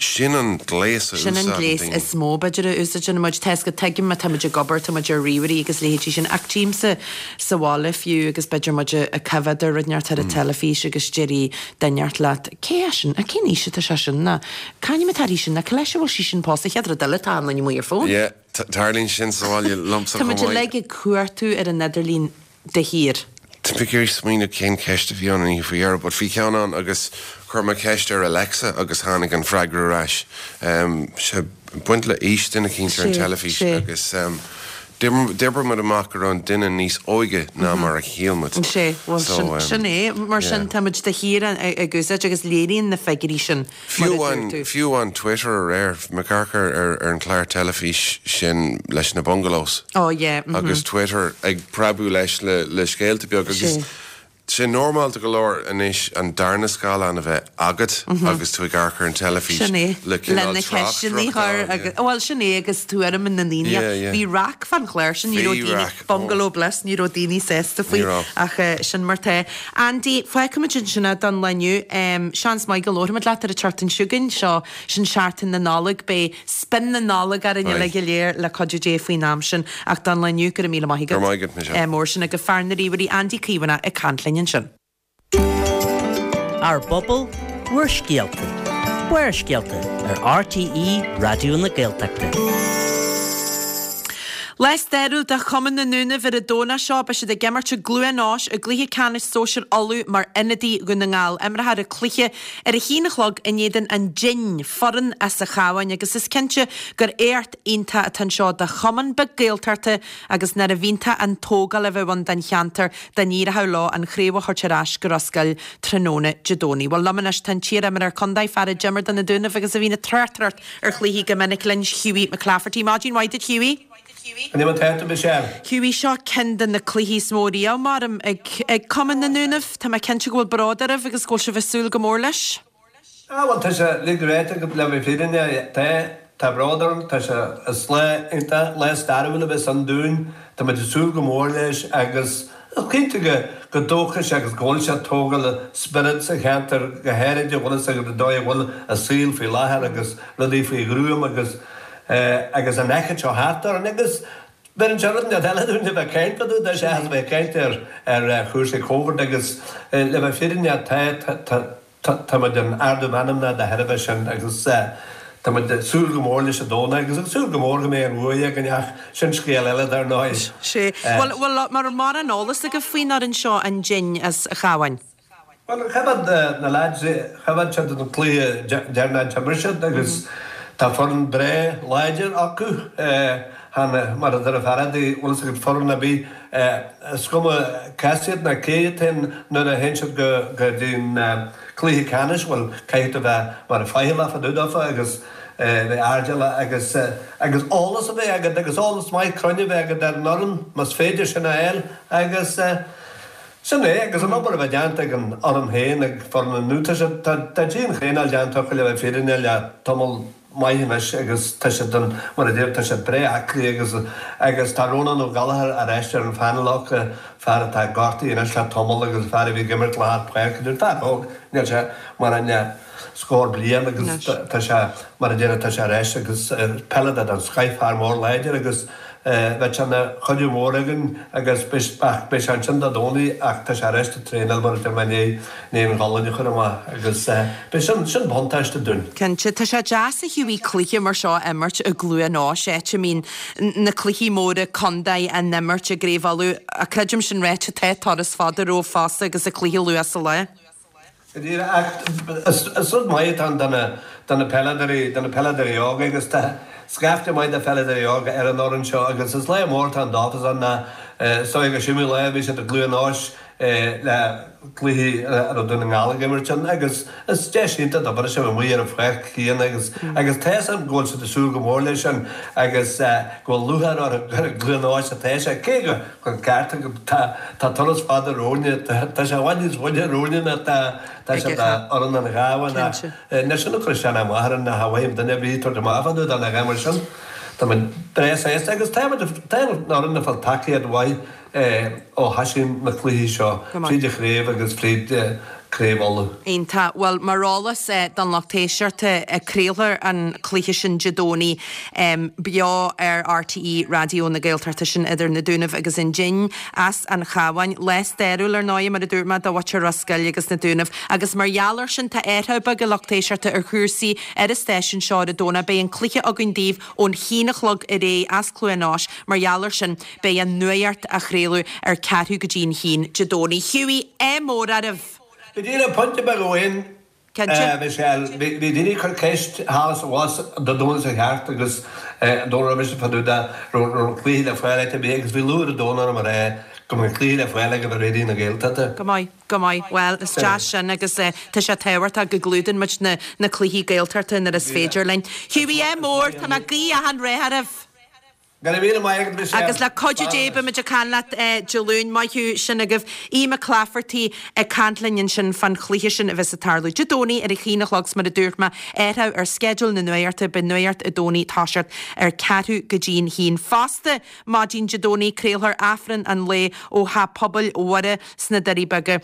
Sin an gléas a Sin an úsáideann gléas daoine. is mó, b'fhéidir, a úsáideann muid. Tá 'fhios agat, tuigim má tá muid ag obair, tá muid ar ríomhairí agus leithéidí sin, ach tchímse sa bhaile fiú agus b'fhéidir muid ag coimhéad ar rud inteacht ar an teilifís agus déarfaidh duine inteacht leat, cé é sin? Cén aois atá sé sin? Nó c'ainm atá uirthi sin? Nó cá leis a bhfuil sí sin pósta? Chéad rud eile tá an duine amuigh ar fón. Yeah, tarlaíonn sin sa bhaile liomsa Tá chomh muid maith. uilig ag cuartú ar an idirlíon de shíor. Tá mé ag iarraidh smaoineamh cén ceist a bhí ann an oíche faoi dheireadh, but bhí ceann ann agus chuir mé ceist ar Alexa agus tháinig an freagra ar ais. Sé ag baint le aois duine eicínt ar an teilifís agus d'oibrigh muid amach go raibh an duine níos óige ná mar a shíl muid. Sé, bhuel sin é, mar sin táimid de shíor ag úsáid agus léiríonn na figiúirí sin mar a dúirt tú. Fiú amháin Twitter aréir, bhí mé ag amharc ar an chlár teilifís sin leis na bungalows. Oh yeah, mhm. Agus Twitter ag preabadh leis le scéalta beaga agus sé normálta go leor anois an darna scáileán a bheith agat agus tú ag amharc ar an teilifís Sin é, le cineál na ceisteanna a chur agus, bhuel sin é agus tuairim na ndaoine. Yeah, yeah. Bhí raic fán chlár sin, ní raibh daoine, Bungalow Bliss, ní raibh daoine sásta faoi ach sin mar tá. Andy, fágfaimid ansin é don lá inniu. Seans maith go labharfaimid leat ar an tseachtain seo chugainn, seo, sin seachtain na Nollag, beidh spion na Nollag orainn uilig go léir le cuidiú Dé faoin am sin. Ach don lá inniu, go raibh míle maith agat. Go raibh maith agat, Michelle. Mór sin agat fear na ríomhairí Andy Caomhánach ag caint linn ansin. Ár bpobal, bhur scéalta. Barrscéalta ar RTÉ Raidió na Gaeltachta. Lá stairiúil do Chumann na nDúnaibh ar an Domhnach seo. Beidh siad ag imirt i gCluain Eois i gcluiche ceannais sóisir Uladh mar ionadaí Dhún na nGall. Imreofar an cluiche ar a haon a chlog in éadan an Dinn, foireann as an Chabhán agus is cinnte gur éacht iontach atá anseo do chumann beag Gaeltachta agus nárbh iontach an tógáil a bheadh ann don cheantar dá n-éireodh leo an chraobh a thabhairt ar ais go Ros Goill tráthnóna Dé Domhnaigh. Bhuel, liom anois tá an t-iar-imreoir contae, fear a d'imir do na Dúnaibh agus a bhíonn ag tráchtaireacht ar chluichí go minic linn, Hughie McClafferty. Maidin mhaith duit, Hughie. Cad é mar tá tú, Michelle? Hughie, seo ceann de na cluichí is mó riamh, maram, ag ag Cumann na nDúnaibh. Tá mé cinnte go bhfuil bród oraibh agus go bhfuil sibh ag súil go mór leis. Ah bhuel tá sé uilig ráite agat le bheith fírinneach, tá, tá bród orm, tá sé, is lá iontach, lá stairiúil a bheas ann dúinn, tá muid ag súil go mór leis agus is cinnte go, go dtógfaidh sé agus go bhfuil sé ag tógáil spiorad sa cheantar go háirid a bhfuil fhios agat an dóigh a bhfuil an saol faoi láthair agus rudaí faoi ghruaim agus eh agus an fhoighid seo thart orainn agus Beireann sé rud inteacht eile dúinn le bheith ag caint fá dtaobh de seachas a bheith ag caint ar ar chúrsaí Covid agus le bheith fírinneach tá tá tá tá muid in ardú meanmna de thairbhe sin agus tá muid ag súil go mór leis an Domhnach agus ag súil go mór go mbeidh an bhuaidh againn ach sin scéal eile dar ndóigh. Sea. Bhuel, bhuel, an raibh mórán eolas agaibh faoin fhoireann seo, an Dinn as an Chabhán? Bhuel, choimhéad na leaids, choimhéad siad an cluiche deireanach a d'imir siad agus tá foireann breá láidir acu. Chan, mar a deir an fear adaí, bhfuil fhios agat, foireann ar bith, is cuma cás iad ná cé iad féin nuair a théann siad go go dtí an cluiche ceannais, bhuel, caithfidh tú bheith mar faichilleach fá dtaobh dófa agus bheith airdeallach agus agus eolas a bheith agat agus eolas maith cruinn a bheith agat ar an fhoireann más féidir sin a fháil agus Sin é, agus an obair a bheith déanta ag an fhoireann féin, ag foireann na nDún, tá siad, tá, tá dian-thraenáil déanta acu le bheith fírinneach le tamall maith anois agus tá siad an, mar a deir, tá siad breá aclaí agus, agus tá Rónán Ó Gallchóir ar ais ar an phainéal acu, fear atá gortaithe anois le tamall agus fear a bhí ag imirt lár páirce, fear óg, níl sé mar an scór bliain agus tá sé, mar a deir, tá sé ar ais agus peileadóir den scoith, fear mór láidir agus bheadh sé ina chuidiú mór againn agus ach beidh sé ansin Dé Domhnaigh ach tá sé ar ais ag traenáil mar a deir mé i ndiaidh an ghualainn a chur amach agus beidh sin, sin buntáiste dúinn. Cinnte, tá sé deas a Hughie cluiche mar seo a imirt i gCluain Eois, áit a mbíonn na cluichí móra contae á n-imirt i gCraobh Uladh ach creidim sin ráite tá turas fada romhaibh fosta agus an cluiche luath sa lá. Go díreach, ach is rud maith atá ann do na, do na peileadóirí, do na peileadóirí óga agus tá scaifte maith de pheileadóirí óga ar an fhoireann seo agus is lá mór atá ann dófa ná is dóigh go siomaí lá a bhí siad i gCluain Eois le cluichí a raibh Dún na nGall ag imirt ann agus is deis iontach dóibh a bheith amuigh ar an pháirc chéanna agus agus tá fhios agam go bhfuil siad ag súil go mór leis sin agus go bhfuil lúcháir orthu gur i gCluain Eois atá sé cé go An ceart agat. Tá tá turas fada romhainne. Tá sé i bhfad níos faide romhainne ná tá tá sé do fhoireann an Chabháin ach níl sin ag cur isteach ná amach orainn ná cha mhaím duine ar bith tabhairt amach fá dtaobh de ná a dhath mar sin. Tá muid breá sásta agus tá muid tá an fhoireann ag fáil tacaíocht mhaith ó thosaigh na cluichí seo fríd an chraobh agus fríd. Craobh Uladh. Iontach. Bhuel, mar eolas don lucht éisteachta, craolfar an cluiche sin Dé Domhnaigh beo ar RTÉ Raidió na Gaeltachta, sin idir na Dúnaibh agus an Dinn as an Chabhán. Lá stairiúil, ar ndóigh, mar a dúirt mé, do mhuintir Ros Goill agus na Dúnaibh. Agus mar gheall air sin, tá athrú beag, a lucht éisteachta, ar chúrsaí ar an stáisiún seo ar an Domhnach. Beidh an cluiche againn daoibh ón haon a chlog ar aghaidh as Cluain Eois. Mar gheall air sin, beidh an nuacht á chraoladh ar ceathrú go dtí an haon Dé Domhnaigh. Hughie, ádh mór oraibh! Go díreach, pointe beag amháin, Cinnte. Michelle. Bhí daoine ag cur ceist thall is abhus an Dé Domhnaigh seo thart agus an Domhnach roimis fá dtaobh de raibh an cluiche le fáil áit ar bith agus bhí lúth ar an domhan orm a rá go mbeadh an cluiche le fáil agaibh ar Raidió na Gaeltachta. Go maith. Go maith. Bhuel, is deas sin agus tá sé tábhachtach go gclúdaíonn muid na na cluichí Gaeltachta nuair is féidir linn. Hughie, ádh mór, tá mé ag guí achan rath oraibh. Go raibh míle maith agat, Michelle. Agus le cuidiú Dé beidh muid ag caint leat Dé Luain. Maith thú, sin agaibh Aodh Mac Laifeartaigh ag caint linn ansin fán chluiche sin a bheas ag tarlú Dé Domhnaigh ar a haon a chlog 's mar a dúirt mé, athrú ar sceideal na nuachta, beidh nuacht an Domhnaigh ag toiseacht ar ceathrú go dtí'n haon. Fosta, maidin Dé Domhnaigh, craolfar Aifreann an lae ó Theach Pobail Mhuire sna Doirí Beaga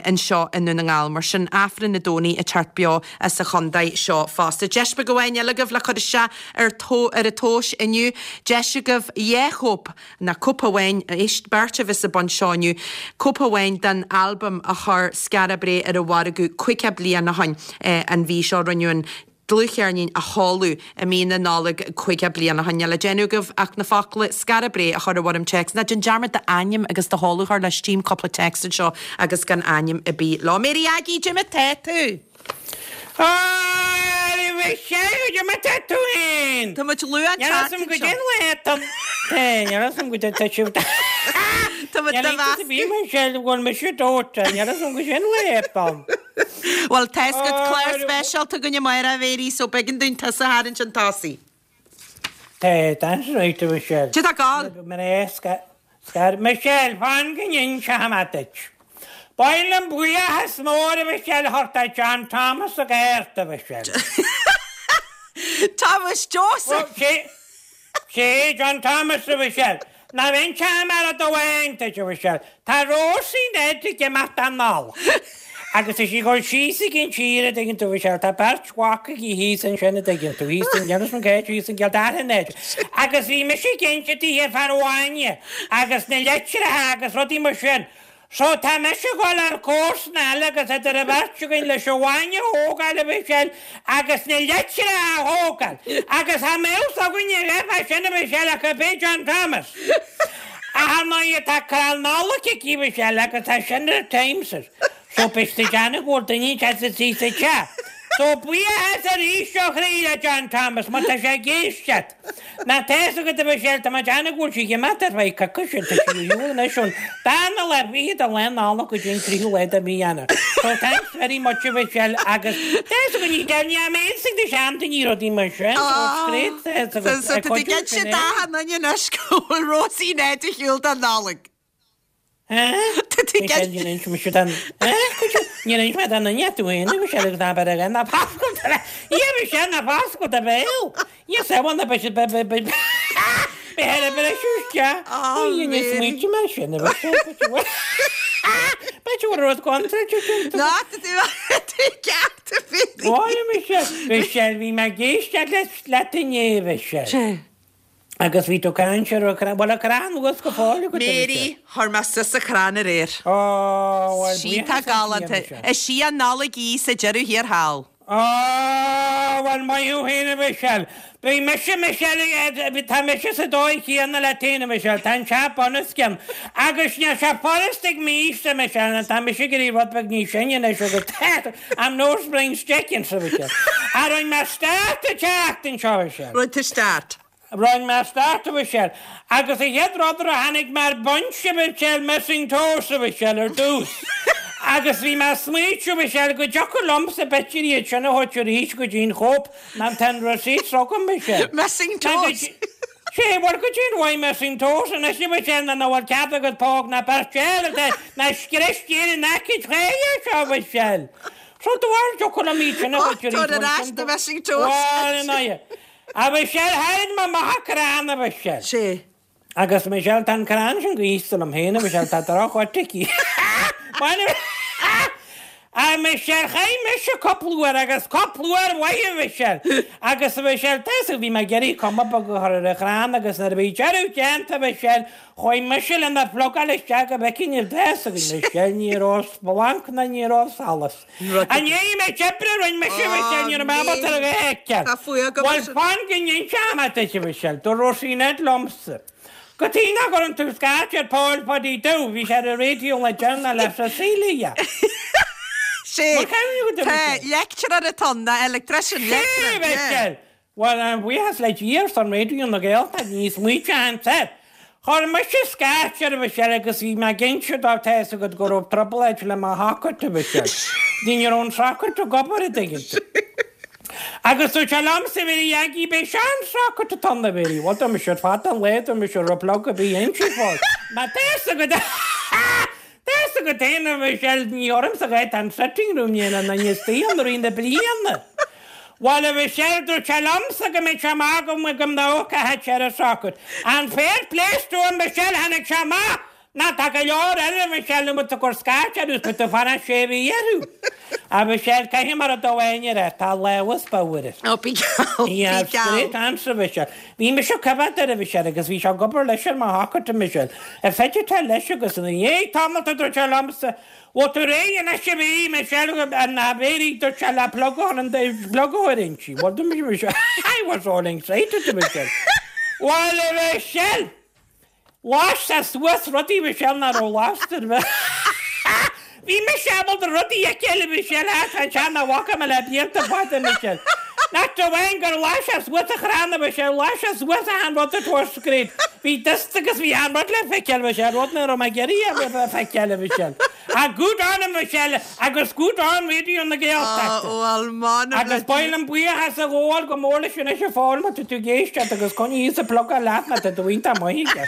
anseo i nDún na nGall. Mar sin, Aifreann an Domhnaigh ag teacht beo as an chontae seo fosta. Deis beag amháin eile agaibh le cur isteach ar ar an tomhas inniu. Deis agaibh dhá chóip, nó cóip amháin, éist, beirt a bheas ag baint seo inniu, cóip amháin den albam a chuir Skara Brae ar an mhargadh 50 bliain ó shin an mhí seo. Rinneadh an dlúthcheirnín a sheoladh i mí na Nollag 50 bliain ó shin. Níl le déanamh agaibh ach na focla 'Skara Brae' a chur i bhfoirm téacs. Ná déan dearmad d'ainm agus do sheoladh a chur leis. Tchím cúpla téacs anseo agus gan ainm ar bith leo. Mary Aggie, cad é mar tá tú? Á, Michelle, cad é mar tá tú féin? Tá muid luath an Níl a fhios agam goidé an lá atá Níl a fhios agam goidé tá sibh Tá muid Níl do iontas ar bith, mheascadh. Michelle, go bhfuil mise dóite. Níl a fhios agam goidé an lá atá. Bhuel, tá 'fhios agat clár speisialta againn amárach, a Mhéirí, so b'éigean dúinn tusa a tharraingt chun tosaigh. Tá, that's right, a Mhichelle. Cad tá ag gabháil? Mar é, scar, Michelle, fan go n-inseoidh mé duit. Ba mhaith liom buíochas mór, a Mhichelle, a thabhairt do John Thomas Ó Gearta, a Mhichelle. Thomas Joseph! Sé John Thomas, a Mhichelle. Ná inseoidh mé rud amháin duit, a Mhichelle. Tá Rósaí Ned ag imeacht don Nollaig. Agus tá sí ag dul síos ag an tír, a dtuigeann tú, a Mhichelle. Tá beirt mhac aici thíos ansin, a dtuigeann tú, thíos in Inis Mac Éid, thíos in gCill Dara Ned. Agus bhí mise ag inse daoithe fán bhainne agus na litreacha agus rudaí mar sin. So tá mise ag dul ar comharsana eile agus idir an bheirt againn leis an bhainne a thógáil, a Mhichelle, agus na litreacha a thógáil. Agus cha mbeadh fhios againne a dhath fá sin, a Mhichelle, ach ab é John Thomas. Ach ar ndóighe tá crann Nollag aici, a Mhichelle, agus tá sin ar Times. So beidh siad ag déanamh go bhfuil duine inteacht istigh sa teach. So buíochas arís ó chroí le John Thomas, má tá sé ag éisteacht. Ná tá fhios agat, a Mhichelle, tá mé ag déanamh go bhfuil sí ag imeacht ar feadh coicíse, tá sí ar shiúl anois ón darna lá fichead de lá Nollag go dtí an tríú lá de mhí Eanáir. So thanks very much, a Mhichelle, agus tá fhios agat, ní deir ní am aon ag na seandaoine rudaí mar sin, so it's great, tá fhios agat, So tá tú ag inse d'achan duine anois go bhfuil Rósaí Ned ar shiúl don Nollaig. Michelle, níor inis mise don Níor inis mé don duine tú féin, a Mhichelle, agus ná beir air ná foscail do bhéal. Ia, Michelle, ná foscail do bhéal. Ia, samhail ná beidh siad beidh beidh beidh beidh ar a bhriseadh isteach. Oh, Ó, ní smaointe mé sin, a Mhichelle, b'fhéidir go bhfuil rud contráilte déanta. Ná, tá tú tú ceart, a Mhéirí. Ó, a Michelle, Michelle, bhí mé ag éisteacht leat inné, a Mhichelle. Sé. Agus bhí tú ag caint ar an chrann, bhfuil an crann anuas go fóill agat, a Mary, Mhichelle? chuir mé suas an crann aréir. Ó, bhuel, Sí tá buíochas le Dia, galánta. Michelle. Is í an Nollaig í sa deireadh thiar thall. Ó, bhuel, maith thú féin, a Mhichelle. Bhí mise, Michelle, tá mise sa dóigh chéanna leat féin, a Mhichelle, tá an teach bunoscionn. Agus níl sé furast ag m'aois-se, Michelle, nó tá mise ag éirí rud beag níos sine anois agus I'm no spring chicken, a Mhichelle. Ach rinne mé start an tseachtain seo, a Mhichelle. Rinne tú start. Rinne mé start, a Mhichelle. Agus an chéad rud a tháinig mé ar bunch, a Mhichelle, missing toes, a Mhichelle, ar dtús. Agus bhí mé ag smaoitiú, a Mhichelle, go dtiocfadh liomsa b'fhéidir iad sin a thabhairt arís go dtí an Coop, ná tá an receipt agam, Michelle. Missing toes. Sé, bhuel, goidé an mhaith missing toes anois, a Mhichelle, ná nach bhfuil cead agat póg ná beirt eile, ná scrios tír in aice tréighe seo, a Mhichelle. So do bharr, dtiocfadh liom iad sin a thabhairt arís. Tabhair ar ais na missing toes. Bhuel, in aghaidh. A Mhichelle, tharraing mé amach an crann, a Mhichelle. Sé. Agus Michelle, tá an crann sin gaosta liom féin, a Mhichelle, tá droch-áit aici. A Michelle, chaith mise cúpla uair agus cúpla uair mhaith a Mhichelle. Agus a Mhichelle, tá 'fhios agat, bhí mé ag iarraidh cuma beag a chur ar an chrann agus nuair a bhí deireadh déanta a Mhichelle, chuaigh mise lena phlugáil isteach go bhfeicfinn an tá 'fhios agat Michelle, ní raibh splanc ná ní raibh solas. I ndiaidh an méid oibre a rinne mise a Mhichelle, ní raibh mé ábalta ar a dhath a fheiceáil. Tá fuath agam Bhuel, fan go n-inseoidh mé duit a Mhichelle, dúirt Róisín Ned liomsa. Cad chuige nach gcuireann tú scairt ar Paul Phaddy Dubh, bhí sé ar an raidió le deireanas le Cecilia. Sé, tá leictreoir atá ann, ná electrician, leictreoir, yeah. Sé, Bhuel, an buíochas le Dia ar son Raidió na Gaeltachta, ní smaoiteoinn air. Chuir mise scairt air a Mhichelle agus bhí mé ag inse dó tá 'fhios agat go raibh trioblóid le mo shocket a Mhichelle. Ní raibh an socket ag obair an dtuigeann tú. Agus dúirt sé liomsa a Mhéirí Aggie b'é seo an socket atá ann a Mhéirí. Bhuel dúirt mise ar fad an lae dúirt mise raibh plug ar bith inti fós. Má tá 'fhios agat tá 'fhios agat féin a Mhichelle ní ormsa a tá an sitting room ní an duine istigh ann i rith na bliana. Bhuel a Mhichelle dúirt sé liomsa go mbeadh sé amach go go n-amharcfadh sé ar an socket. And fair play to him Michelle tháinig sé amach Ná tá go leor eile a Mhichelle nó muid ag cur scairt orthu is muid ag fanacht sé mhí orthu. A Mhichelle, caithfidh mé rud amháin a rá, tá lámhas bodhar air. Ó, bí geall, bí Yeah, geall. straight answer, a Mhichelle. Bhí mise ag coimhéad air, a Mhichelle, agus bhí sé ag obair leis ar mo shocket, a Mhichelle. Ar féidir te leis agus ina dhiaidh tamalt a dúirt sé liomsa, Bhfuil tú réidh anois a bhí, Michelle, an Mhéirí, dúirt sé le plug a chur an plug a chur inti. Bhuel, dúirt mise, Michelle, I was all excited, a Mhichelle. Bhuel, a Mhichelle! Las sé suas rudaí Michelle nach raibh lasta ar bith. Bhí mise ábalta rudaí a fheiceáil a Mhichelle ach tá sé nach bhfaca mé le blianta fada Michelle. Not amháin gur las sé suas an chrann a Mhichelle, las sé suas achan rud it was great. Bhí dust agus bhí achan rud le feiceáil Michelle, rud nach raibh mé ag iarraidh a feiceáil a Mhichelle. Ah good on him Michelle agus good on Raidió na Gaeltachta. Ó bhuel m'anam le Agus ba mhaith liom buíochas a ghabháil go mór leis anois a Phóil má tá tú ag éisteacht agus coinnigh thíos an plugáil leat má tá do iontach maith aige.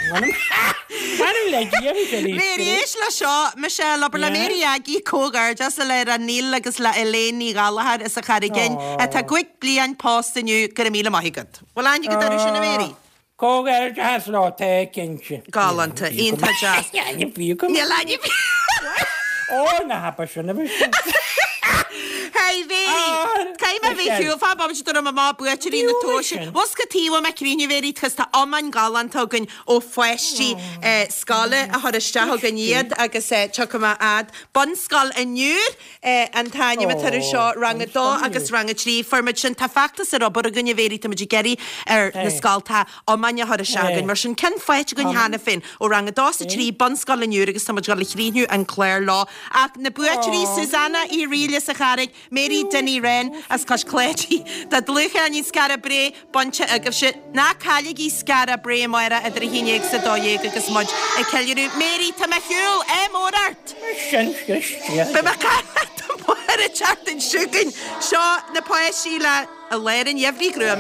M'anam le Dia Michelle Mary éist le seo Michelle abair le Mary Aggie comhghairdeas le Neil agus le Elaine Ní Ghallchóir as an Charraig Fhinn atá gcúig bliain pósta inniu go raibh míle maith agat. Bhfuil aithne agat orthu sin a Mary? Comhghairdeas leo, tá cinnte. Galánta, iontach deas. Níl ainm fiú agam. Níl ainm Ó, na hapa sin a bhí sin. Hey, Mary, caithfidh mé bheith shiúl fá bomaite dúirt mé má buaiteoirí na tomhaise. Bhfuil cad taobh mé críonna Mary cos tá iomáin galánta againn ó pháistí scoile a chur isteach againn iad agus tiocfaidh mé fhad. Bunscoil an Iúir. An t-ainm atá air seo, Rang 2 agus Rang 3. Fuair muid sin. Tá feachtas ar obair againn, a Mhéirí, tá muid ag iarraidh ar na scoltacha iomáin a chur isteach againn. Mar sin, ceann faighte againn cheana féin ó Rang 2 is 3, Bunscoil an Iúir agus tá muid ag dul a chríochnú an clár leo. Ach na buaiteoirí, Susanna Uí Fhrighil as an Charraig, Mary Dinny Wren as Cois Cláidí. Tá dlúthcheirnín Skara Brae bainte agaibhse. Ná cailligí Skara Brae amárach idir 11 is 12 agus muid ag ceiliúradh. Mary, tá mé ar shiúl! Ádh mór ort! Sin scríste. Beidh mé ag caint leat amárach an tseachtain seo chugainn. Seo na páistí le I Lár an Gheimhridh Ghruama.